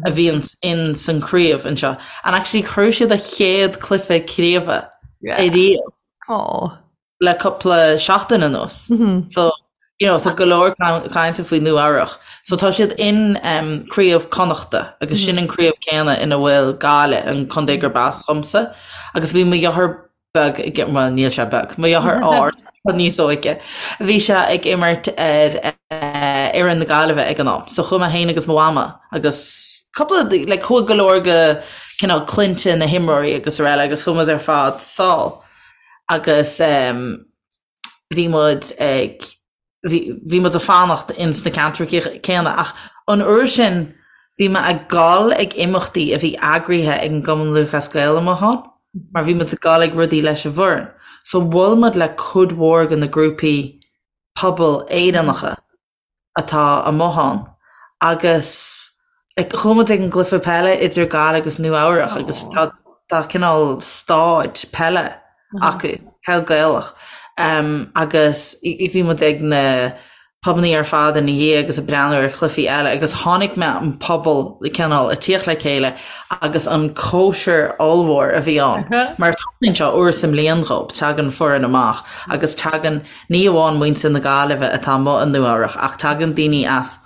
a bhíonn in san craobh anseo and actually chuir siad a chéad cluiche craoibhe ariamh. Aww. le cúpla seachtain anuas. So, you know, tá go leor cainte faoi Nua Eabhrach. So tá siad in um, Craobh Connachta agus sin an craobh céanna ina bhfuil Gaillimh, an contae gurb as dhomsa. Agus bhí mo dheartháir beag ag, well, níl sé beag, mo dheartháir ard, tá níos óige. Bhí sé ag imirt ar eh, fhoireann na Gaillimhe ag an am. So chuaigh mé féin agus mo mhama agus cúpla, like, chuaigh go leor de cineál clainne na himreoirí agus araile agus chuaigh muid ar fad sall. agus bhí muid ag, bhí muid ag fanacht ins na ceantracha céanna ach an uair sin bhí mé ag gabháil ag imeachtaí a bhí eagraithe ag an gCumann Lúthchleas Gael amuigh ann mar bhí muid ag gabháil ag rudaí leis an bhfoireann. So bhuail muid le cuid mhór de na grúpaí pobail Éireannacha. atá amuigh ann agus like chuaigh muid ag an gcluiche peile idir Gaillimh agus Nua Eabhrach agus tá tá cineál stáid peile acu, peil Gaelach um, agus bhí muid ag na pubannaí ar fad ina dhiaidh agus ag breathnú ar chluichí eile agus chonaic mé an pobal cineál ag tíocht le chéile agus an cóisir ollmhór a bhí ann mar tarlaíonn seo uair sa mbliain dhób, tagann foireann amach agus tagann Ní amháin muintir na Gaillimhe atá amuigh i Nua Eabhrach ach tagann daoine as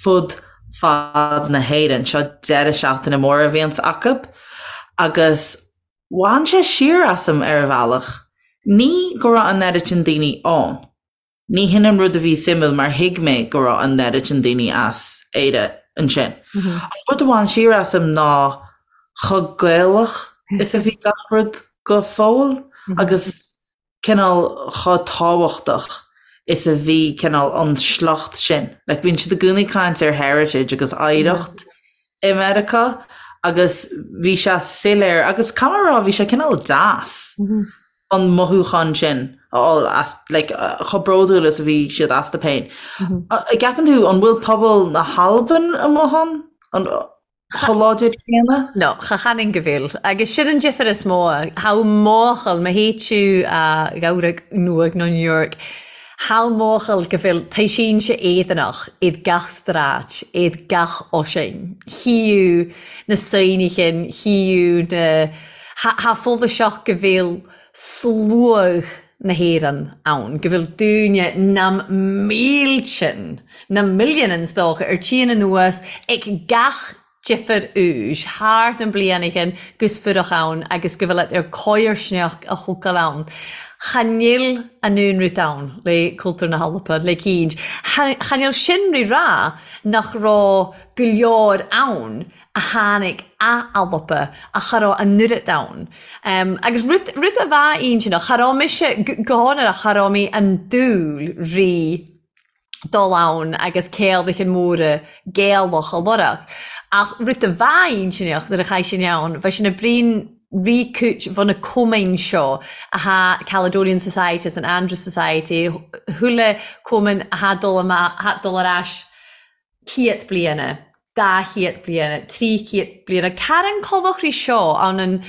fud fad na hÉireann. Seo deireadh seachtaine mór a bhíonns acu agus bhain sé siar asam ar a bhealach. Ní go raibh an oiread sin daoine ann. Ní hin an rud a bhí suimiúil mar thuig mé go raibh an oiread sin daoine as Éire ansin. An rud a bhain siar asam ná chomh Gaelach is a bhí gach rud go fóill agus cineál chomh tábhachtach is a bhí cineál an sliocht sin. Like bíonn siad i gcónaí ag caint ar heritage agus oidhreacht i Meiriceá agus bhí sé soiléir agus caithfidh mé a rá bhí sé cineál deas an mothúchán sin a fháil as like chomh bródúil is a bhí siad astu féin. An gceapann tú an bhfuil pobal na hAlban amuigh ann? An chomh láidir céanna? No, cha chanann go bhfuil. Agus sin an difear is mó. Tha mòchal, ma theid thu a Eabhrac Nuadh no New York, tha mòchal go bhfuil taoisínse Éireannach id gach stráid, id gach oisinn. Chíodh na saoinichin, chíodh na, tha follasach go bhfuil sluagh na hÉireann ann, go bhfuil daoine na míltean, na milliúin is dócha, ar tían anuas ag gach. difir úis thart an blianaighean gus fuireach ann agus go bhfuil ar coirsneach a thógáil ann. Cha nil an aon rud ann le cultúr na hAlba le cinnt. Cha nil sin ri rá nach raibh go leor ann a tháinig a' Alba ach cha raibh an oiread ann. Agus rud rud a bheadh intinneach, cha raibh mise, go hionrach, cha raibh mé an dúil ri dul ann agus céadachan móra Gaelach a lorg. Ach rud a bheadh intinneach nuair a chaith sin ann, bheadh sin a brín rí cúit bhun na cumainn seo a tha Caledonian Society is an Andrews Society, chuile cumann a tha dul amach, tha dul ar ais ciat bliana, dá chiat bliana, trí chiat bliana. Caran colachraí seo ann an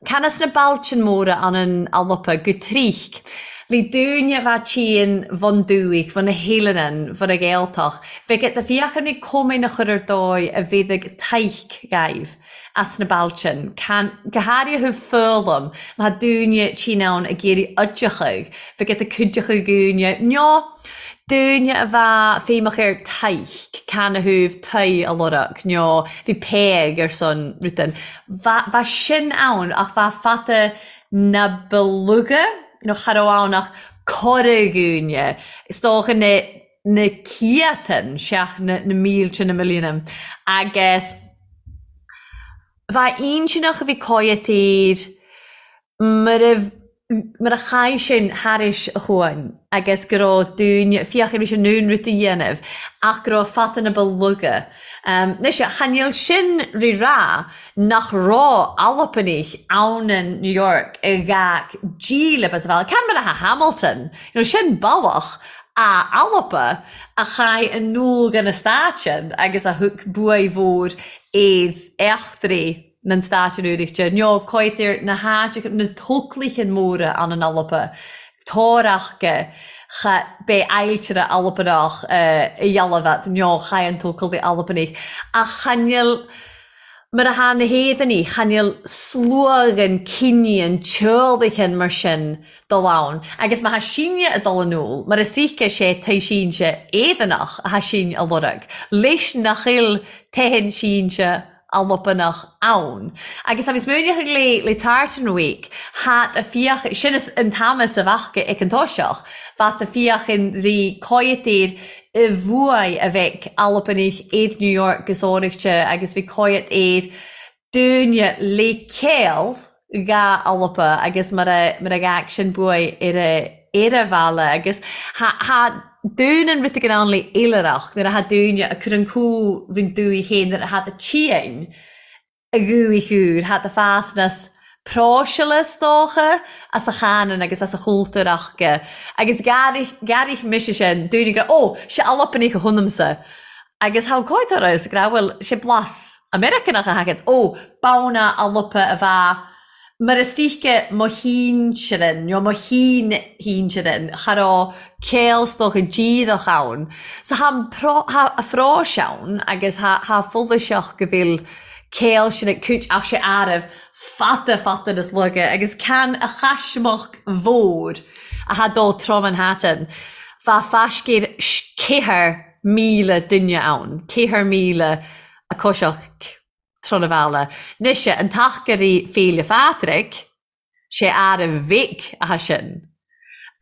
can as na bailtean móra ann an Alba go trích. Le dúine bha tSín bhun dúich, bhun na hEileanan, bhun a Ghaeltach, bheadh et a fiachair ní cómain a chur ar dóigh a bhéadaig taidhc gaibh. as na bailtean, can, go háirithe foghlaim, má tha dúine tinn ann ag iarraidh oideachadh, bheadh et a cuideachadh dhúine, nó dúine a bheadh feidhmeach ar taidhc, can a thabh tae a lorg, nó bhí peig ar son rutan. Bha, bha sin ann ach bha fata na ba lugha, nó cha raibh ann ach corra dhúine, is dócha na, na ciatan, seach na, na mílte, na milliúna. Agus bha intinneach a bhí coimhthír mar a, mar a chaith sin thairis a chuain agus go raibh dúine, fiach ar bhí sé in ann rud a dhéanamh ach go raibh fata na ba lugha. Anois, cha níl sin ri rá nach raibh Albannaigh ann in New York i gach dílib as a bhealach. Can mar atá Hamilton, you know, sin bealach a Alba a chaith an nua den stát sin agus a thug buaidh mhór iad eachtraí nan stáit an Oireachtais, nó coimhthír na háiteacha, na tóclaithe móra ann in Alba, Tórachga, cha b'é ailtire Albanach a dhealbh nó chaith an tócalaí Albanaigh, ach cha nil Mar atá na hÉireannaigh, cha nil sluaghan cinníonn teoraichin mar sin dul ann, agus má thá sinne ag dul in iúl, mar is oíche sé tae sínte Éireannach athá sinn a lorg, leis nach bhfuil teitheann sínte Albanach ann. Agus tá mé smaoineach le le Tartan Week, thá a fiach, sin is an t-am is a bheadh ag an toiseach, bheadh a fiachan rí coimhthír i bhfuath a bheadh Albanaigh iad New York gus áirithe agus bhí coimhead air dúinne le céill dhá Alba agus mar a mar a gheadh sin buaidh ar a ar a bhaile agus tha tha dún an rud ag an le oilithreach nuair a tha dúinne a cur an cú roinnt dúigh féin nuair a tha do tSín a dhúigh úr, tha do fásnas próiseála is dócha, as a chanann agus as a chultúr aca. Agus ghearraigh mise sin, dúinne go, ó, sé Albanach a thionamsa. Agus tha cóid orthu, go raibh, bhuel, sé blas Americanach a thagann, ó, b'ann Alba a bheadh Mar is dóiche mo shinsearan, nó mo shin-shinsearan, cha raibh céill is dócha díreach ann. So tha an tha a phróis ann agus tha tha follasach go bhfuil céill sin ag cúit ach sé arbh fada fada nas laige agus can a chaismeach mhór a tha dó trom Manhattan bha faiscéir 4,000 duine ann, 4,000 a coiseach. Tron a bheala. Nois an t-achairí Féile Phádraig, sé ara bhig atá sin.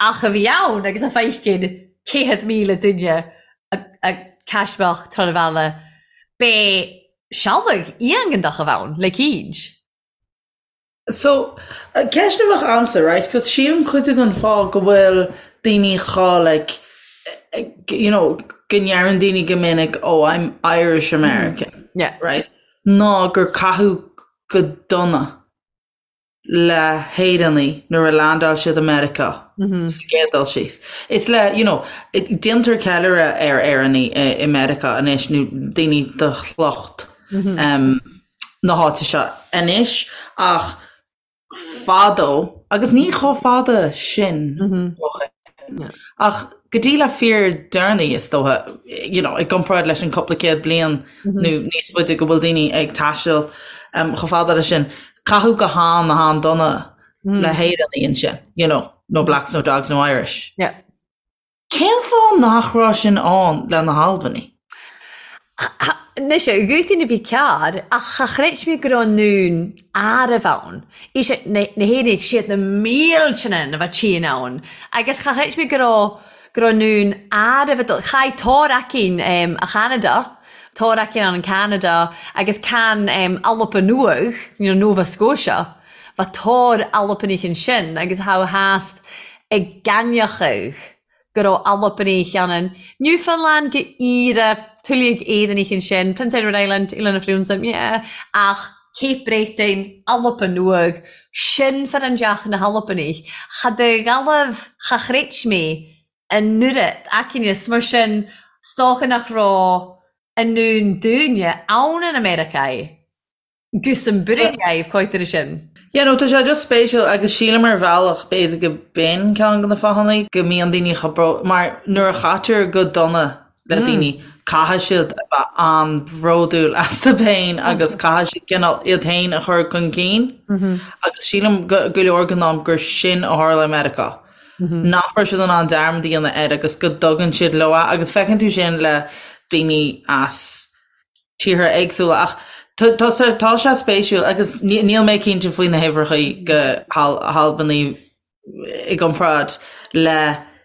Ach a bhí ann agus a feicinn 100,000 duine a caismeach Tron a bheala, b'é sealbhadh iongantach a bh' ann le cinnt. So, ceist a bheadh a'msa, right, 'cause sílim cuid den fáth go bhfuil daoine chomh like, you know, go ndeireann daoine go minic oh I'm Irish American, Yeah. right, ná gur caitheadh go dona le hÉireannaigh nuair a landáil siad i Meiriceá sa gcéad dul síos. Is le, you know, déantar ceiliúradh ar Éireannaigh i Meiriceá anois nó daoine de shliocht na háite seo anois ach fadó, agus ní chomh fada sin ó shin, ach go dtí le fíor deireanaí is dócha, you know, i gcomparáid leis an cúpla céad bliain nó níos faide go bhfuil daoine ag taisteal chomh fada leis sin, caitheadh go han-an-dona le hÉireannaigh ansin, you know, no blacks, no dogs, no Irish. Yeah. Cén fáth nach raibh sin ann le na hAlbanaigh? Anois, dhúirt a bhí cearr, ach cha chreid mé go raibh an dún arbh ann. Is na hÉireannaigh, siad na millteanna a bheadh tinn ann. Agus cha chreid mé go raibh, go raibh an dún arbh ag dul. Chaith Tor aicín a Cheanada, Tor aicín ann in Canada agus can Alba Nuadh, you know, Nova Scotia, bheadh Tor Albanach ansin agus tha theast ag gcainneachadh. go raibh Albannaich ann in Newfoundland go Éire, tuilleadh Éireannaich ansin, Prince Edward Island, Oileán na Friúnsa, yeah, ach Cape Breton, Alba Nuadh, sin fir an deach na hAlbannaich. Cha de Ghallaibh cha chreid mé an oiread aicín mar sin 's dócha nach raibh an ndún dúinne ann in America. Gus an bhreith coitir sin. Yeah no tá sé just spéisiúil agus sílim ar bhealach b'fhéidir go b'in ceann de na fáthanna go mbíonn daoine chomh bró mar nuair a chaitear go dona le daoine caithfidh siad a bheith an-bhródúil astu féin agus caithfidh siad cineál iad féin a chur chun cinn agus sílim go go leor den am gur sin a tharla i Meiriceá. Nach raibh siad in ann dearmad a dhéanamh air agus go dtugann siad leo é agus feiceann tú sin le daoine as tíortha éagsúla ach tá tá sé spéisiúil agus níl mé cinnte faoi na huimhreacha go hAlbanaigh i gcomparáid le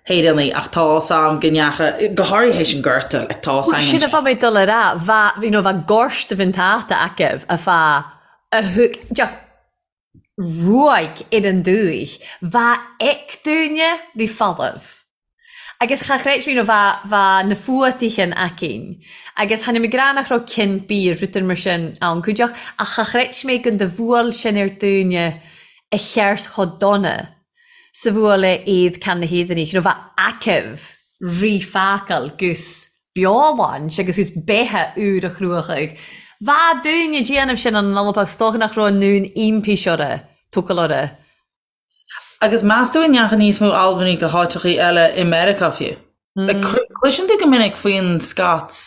hÉireannaigh ach tá 's a'm go ndeacha, go háirithe théis an Ghorta, like tá 's a'm. Sin a bha mé dul a rá, bha, you know, bha gorta bhinn tata acu a fa a thug, deoch ruaig ar an dúich, bha ec dúinne ri folamh. Agus cha chreid mé, nó bha, bha na fuataichin aicinn. Agus tháinig mé grá nach raibh cinn bídh rud ar mar sin ann cuideach, ach cha chreid mé gun do bhuail sin ar dúinne a cheart chomh dona 's a bhuail é iad can na hÉireannaigh, nó bha aicibh ri facal gus beoláint agus gus beithe úr a chruachaidh. Bha dúinne déanamh sin an Alba 's dócha nach raibh an ndún impís orra, tógáil orra. Agus meas tú an ndeachaigh níos mó Albanaigh go háiteachaí eile i Meiriceá fiú? Like, cloiseann tú go minic faoin Scots,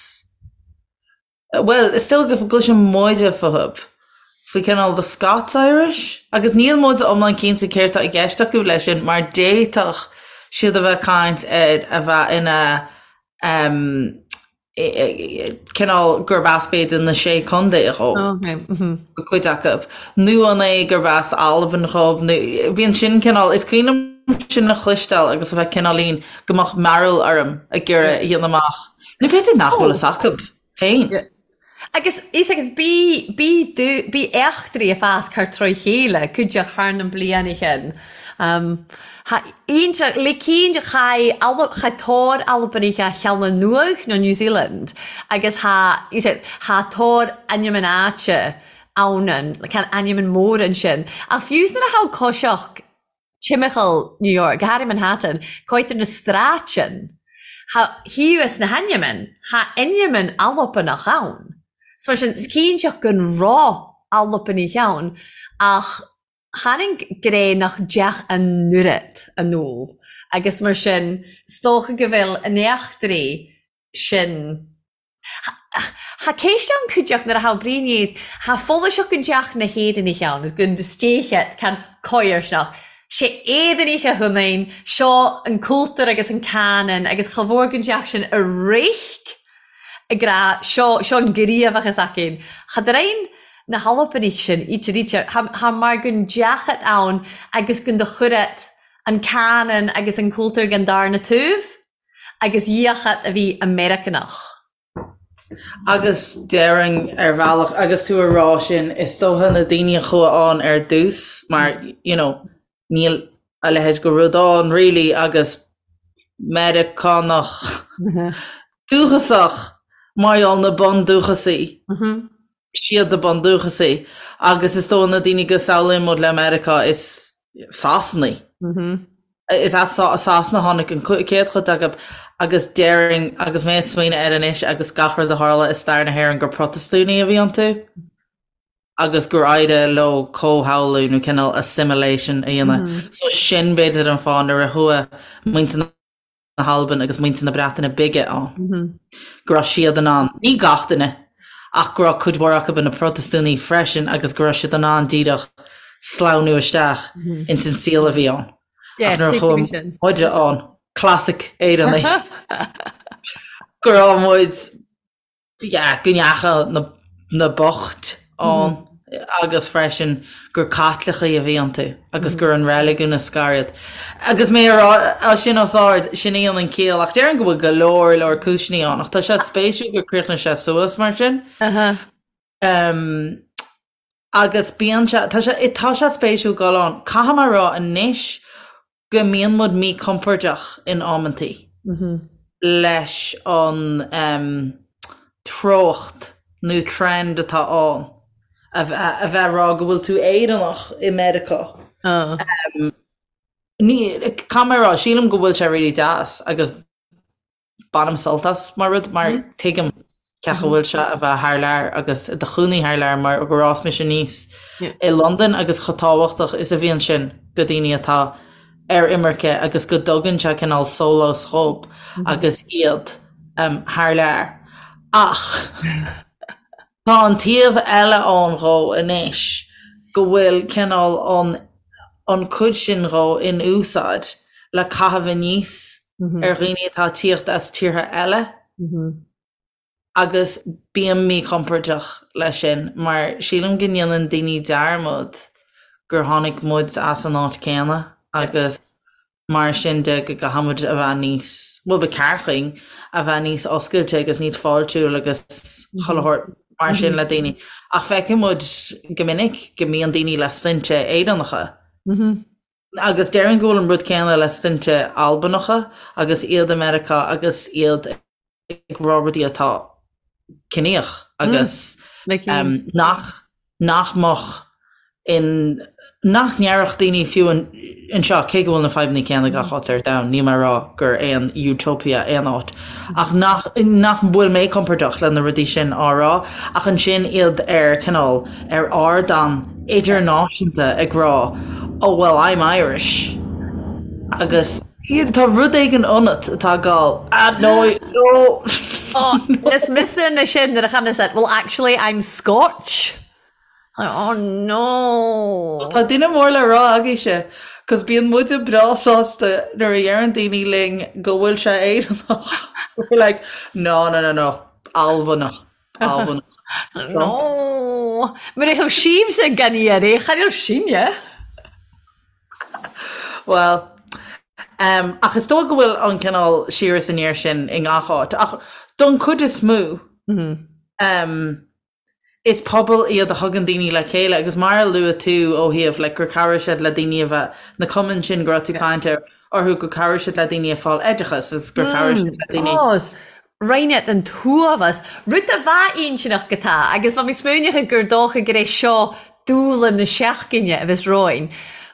bhuel, is dóigh go gcloiseann muide fúthu, faoi cineál the Scots Irish, agus níl muid iomlán cinnte céard tá i gceist acu leis sin mar d'fhéadfadh siad a bheith ag caint ar a bheith ina cineál gurb as b'fhéidir na Sé Chontae dhó, go cuid acu, nó an é gurb as Albain dhób, nó bíonn sin cineál, is cuimhin liom sin a chloisteáil agus a bheith cineáilín go mbeadh mearbhall orm ag iarraidh a dhéanamh amach, nó b'fhéidir nach bhfuil fhios acu féin. Agus is agus bí, bí, bí eachtraí ag fás thar troigh chéile, cuideachd thar na blianaighean. Tha iontach, le cinn chaith Alb, chaith tor Albanaich a Shealann Nuadh nó New Zealand agus tha, is ea, tha tor ainm an áite ann an, can ainm an mór ansin. Ach fiú 's nuair a tha coiseach timcheall New York, go háirithe Manhattan, coitir na stráitean, tha thíos na hainmean, tha ainmean Albanach ann. So mar sin, 's cinnteach gun raibh Albanaich ann, ach chan an gré nach dteach an oiread an ól, agus mar sin, 's dócha go bhfuil an eachtraí sin. Tha céist ann cuideachd nuair a tha Brian iad, tha follaseach gun dteach na hÉireannaich ann, is gun stéichet can coirsneach. Sé Éireannaich a hunain, seo an cultúr agus an canon agus cha mhór gun dteach sin a réic ag rá seo, seo an gníomhachas aicinn. Cha dtrein na hAlbanaich sin íte ríte, tha mar gun dteachat ann agus gun do chuireat an canon agus an cultúr gan darna taobh. agus dhíochat a bhí Meiriceánach. Agus déarfainn ar bhealach, agus tú a rá sin, is dócha na daoine a chuaigh ann ar dtús mar, you know, níl a leithéid de rud ann really agus Meiriceánach dúchasach mar gheall na bundúchasaigh, siad na bundúchasaigh agus is dóigh na daoine go samhlaíonn muid le Meiriceá is Sasanaigh. Is as Sasana a tháinig an chéad chuid acu agus déarfainn, agus mé ag smaoineamh air anois agus gach rud a tharla i stair na hÉireann, gur Protastúnaigh a bhí iontu agus gur éirigh leo comhshamhlú nó cineál assimilation a dhéanamh. So sin b'fhéidir an fáth nuair a chuaigh muintir na na hAlban agus muintir na Breataine Bige ann, go raibh siad in ann, ní gach duine, ach go raibh cuid mhór acu ina Protastúnaigh freisin agus go raibh siad in ann díreach sleamhnú isteach ins an saol a bhí ann. Ach nuair a chuaigh muide ann, classic Éireannaigh, go raibh muid. Yeah, go ndeacha na, na boicht ann agus freisin gur Caitlicigh a bhí iontu agus gur an reiligiún a scar iad. Agus mé a rá sin os ard, sin í an an ciall, ach déarfainn go bhfuil go leor leor cúiseanna ann, ach tá sé spéisiúil gur chríochnaigh sé suas mar sin. Um, agus bíonn sé, tá sé, tá sé spéisiúil dul ann. Caithfidh mé a rá anois go mbíonn muid míchompordach in amantaí leis an treocht nó trend atá ann a bheith ag rá go bhfuil tú Éireannach i Meiriceá. Caithfidh mé a rá, sílim go bhfuil sé really deas agus Bainim sult as mar rud mar tuigim cén chaoi a bhfuil sé a bheith thar lear agus i do chónaí thar lear mar gur fhás mise aníos i Londain agus chomh tábhachtach is a bhíonn sin go daoine atá ar imirce agus go dtugann sé cineál sólás dhób agus iad thar lear. Ach tá an taobh eile ann dhó anois go bhfuil cineál an an cuid sin dhó in úsáid le caitheamh aníos ar dhaoine atá ag tíocht as tíortha eile agus bím míchompordach leis sin mar sílim go ndéanann daoine dearmad gur tháinig muid as an áit céanna agus mar sin de go gcaithfidh muid a bheith níos, bhuel ba cheart dhuinn a bheith níos oscailte agus níos fáiltiúil agus chuile shórt mar sin le daoine. Ach feiceann muid go minic go mbíonn daoine le sloinnte Éireannacha Agus déarfainn go bhfuil an rud céanna le sloinnte Albanacha agus iad i Meiriceá agus iad ag rá rudaí atá ciníoch agus nach nach mbeadh in nach ndéarfadh daoine fiú anseo, cé go bhfuil na fadhbanna céanna gach áit ar domhan, níl mé ag rá gur aon utopia aon áit, ach nach nach bhfuil mé compordach le na rudaí sin á rá, ach ansin iad ar cineál ar ardán idirnáisiúnta ag rá oh well I'm Irish agus tá rud éigin ionat atá ag gabháil ah no no Oh, is mise na sin nuair a chan said, well actually I'm Scotch. Oh no. Tá duine mór le rá agaibhse, cos bíonn muide breá sásta nuair a dheireann daoine linn go bhfuil sé Éireannach. We're like, no, no, no, no, Albanach. Albanach. No! Mar a thug sibhse gan iarraidh, chan fhuil sinne. Bhuel, um, ach is dóigh go bhfuil an cineál siar is aniar sin i ngach áit, ach don chuid is mó, um, is pobal iad a thugann daoine le chéile agus mar a luaigh tú ó thaobh like, gur chabhraigh siad le daoine a bheith na cumainn sin go raibh tú ag caint orthu gur chabhraigh siad le daoine ag fáil oideachas agus gur chabhraigh siad le daoine Ó, Roinneadh an t-uafás, rud a bheadh intinneach go tá, agus bha mi smaoineachadh gur dócha gur é seo dúla na seachtaine a bheas romhainn.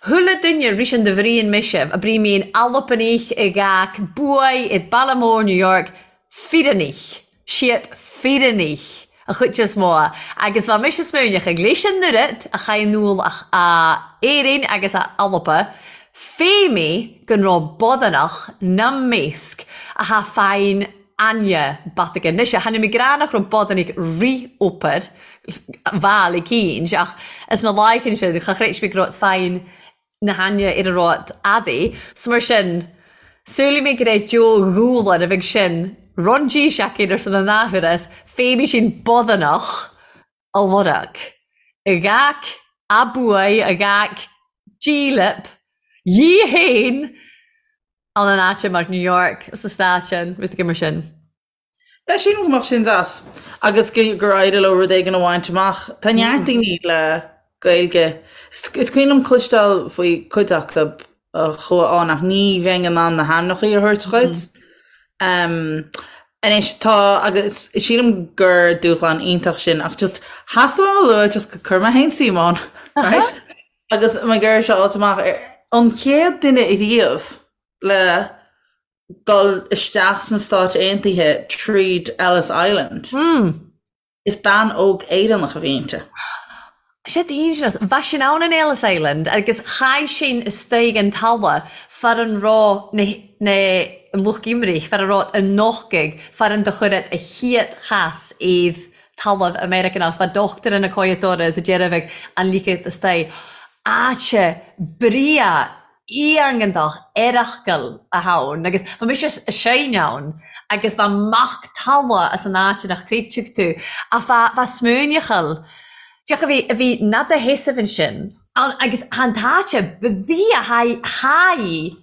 Chuile duine ris an do bhrian mise, a brí mi in Albanach i gcách buaidh i Baile Mór New York, fíreannaich, siad fíreannaich a chuid is mó, agus bha mise smaoineachadh leis an oiread a chaith an úll a Éirinn agus a Alba, Fé mi gun robh boddanach 'na measg a tha faighinn aithne bataige. Anois, tha mi ag ràdh nach robh boddanach rith-obair mhail eicínt, ach as na láichean sin, cha chreid mi go robh faighinn na haithne ar a robh adaí. 'S mar sin, samhlaigh mi gur é Joe Dhúlan a bheidh sin run G-seaicín ar son an athuair, fé mi sin boddanach a lorg. A gach a buaidh, a gach dílip, dhi fhéin ann an áite mar New York, sa stát sin, rud éigin mar sin. Yeah, sílim go mbeadh sin deas agus gur éirigh leo rud éigin a bhaint amach. Tá neart daoine le Gaeilge. Is cuimhin liom cloisteáil faoi cuid acu a chuaigh ann ach ní bheinn in ann na hainmneacha a thabhairt dhuit. Anois tá agus sílim gur dúshlán iontach sin ach just theastaigh uaim a lua just go cuir mé féin suim ann right? Agus mé ag iarraidh seo a fháilt amach ar an chéad duine riamh le dul isteach sna Stáit Aontaithe tríd Ellis Island. Is bean óg Éireannach a bhí inti. Sé dangerous. Bha sinn ann in Ellis Island agus chaith sinn istoigh an talla far an raibh na na an lucht imrich, far a raibh an nochtaidh, far an do chuiread a chiad chas iad talamh Americanach. Bha dochtúir ina coiadóra is a deireadh an ligead istoigh. Áite bria. iontach earrachgal a tha ann agus bha mise a seinne ann agus bha mac talla as an áit nach creidfeadh tú ach bha bha smaoineachal Deoch a bhí a bhí nada sheasamh ansin ann agus tha an t-áite bhí a haghaidh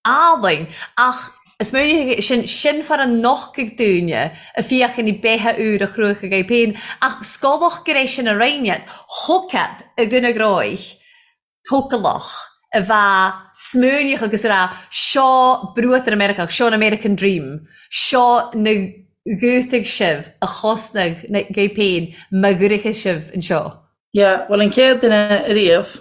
álainn ach is smaoineachadh sin sin far a nochtadh dúinne a fiachain i beithe úr a chruacha agaibh féin ach scolach go raibh sin a roinnead thugad i gcoinne gróich tócalach a bheadh smaoineach agus a rá seo bruatar Meiriceách seo an American Dream seo na gútaigh sibh a chosnaigh agaibh féin má ghuirfidh sibh anseo. Yeah, bhuel an chéad duine ariamh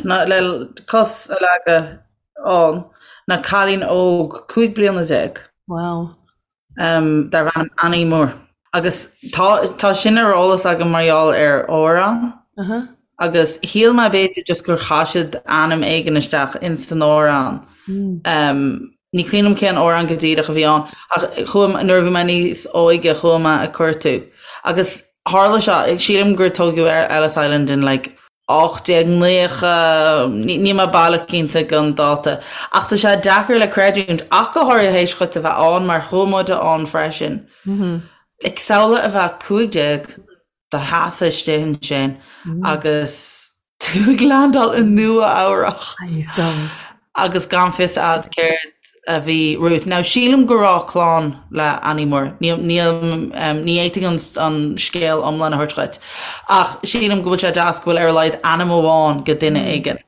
ná le cos a leagadh ann ná cailín óg 15 bliana. Wow. Um, darbh ainm Annie Moore. Agus tá, tá sin ar eolas agam mar gheall ar amhrán. Uh -huh. Agus shíl mé b'fhéidir just gur chaith siad ainm éigin isteach in san amhrán. Mm. Um, ní cuimhin liom cén amhrán go díreach a bhí ann, ach chuaigh, nuair a bhí mé níos óige chuaigh mé ag cuartú. Agus tharla seo, sílim gur tógadh Ellis Island in like 1890, níl mé baileach cinnte den dáta, ach tá sé deacair le creidiúint, ach go háirithe théis dhuit a bheith ann, mar chuaigh muide ann freisin. Like, samhlaigh a bheith 15 do sheasamh istigh ansin agus tú ag landáil i Nua Eabhrach agus gan fios a'd céard a bhí romhat. Now, sílim go raibh clann le Annie Moore. Níl, níl, ní fhéadfainn an, an scéal iomlán a thabhairt dhuit. Ach sílim go bhfuil sé deas go bhfuil ar a laghad ainm amháin go duine éigin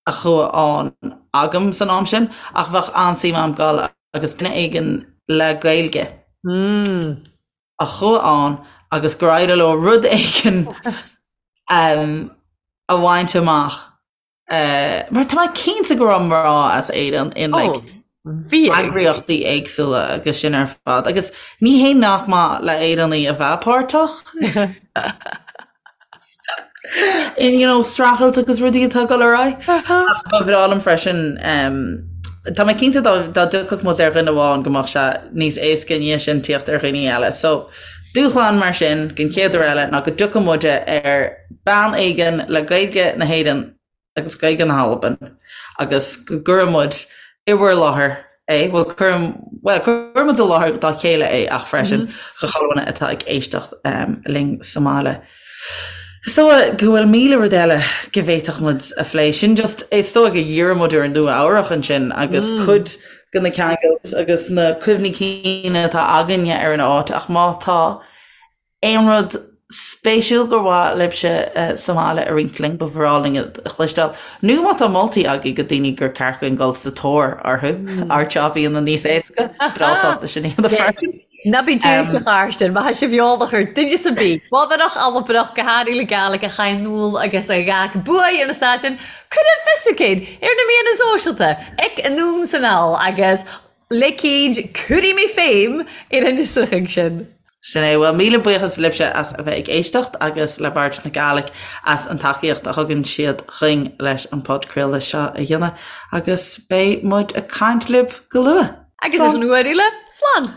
a chuaigh ann agam san am sin. Ach bheadh an-suim a'm dul agus duine éigin le Gaeilge a chuaigh ann agus gur éirigh leo rud éigin a bhaint amach. Mar tá mé cinnte go raibh mná as Éirinn in like eagraíochtaí éagsúla agus sin ar fad. Agus ní hé nach maith le Éireannaigh a bheith páirteach in you know, streachailt agus rudaí atá ag dul ar aghaidh. Ach ba bhreá liom freisin tá mé cinnte dá dá dtiocfadh muid ar dhuine amháin go mbeadh sé níos éasca i ndiaidh sin tíocht ar dhaoine eile. So dúshlán mar sin den chéad uair eile ná go dtiocfadh muide ar bean éigin le Gaeilge na hÉireann agus Gaeilge na hAlban agus go gcuirfidh muid i bhur láthair é, bhuel cuirim, bhuel cuirfidh muid i láthair dá chéile é ach freisin do chuile dhuine atá ag éisteacht linn sa mbaile. Is dóigh go bhfuil 1000 rud eile go bhféadfadh muid a phlé. Sin just, is dóigh go dhírigh muid ar Nua Eabhrach ansin agus cuid de na ceangailt agus na cuimhní cinn atá againne ar an áit ach má tá aon rud spéisiúil gur mhaith libhse sa mbaile a roinnt linn, ba bhreá linn a chloisteáil. Nó má tá moltaí agaibh go daoine gur ceart dúinn dul sa tóir orthu, ár job a dhéanamh níos éasca, breá sásta sin a dhéanamh freisin. Ná bí dúirt a Chairsten, má tá sibh eolach ar duine sa bith, Bodhrach, Albanach, go háirithe le Gàidhlig a chaith anall agus a ghabh buaidh ar na stáisiúin, cuir fios againn ar na meáin sóisialta, ag Anonn 's Anall agus le cíd cuirfidh mé féim ar an fhiosrúchán sin. Sin é. Bhuel, míle buíochas libhse as a bheith ag éisteacht agus le Bard na Gàidhlig as an tacaíocht a thugann siad chugainn leis an podchraoladh seo a dhéanamh agus beidh muid ag caint libh go luath. Agus an uair eile, slán!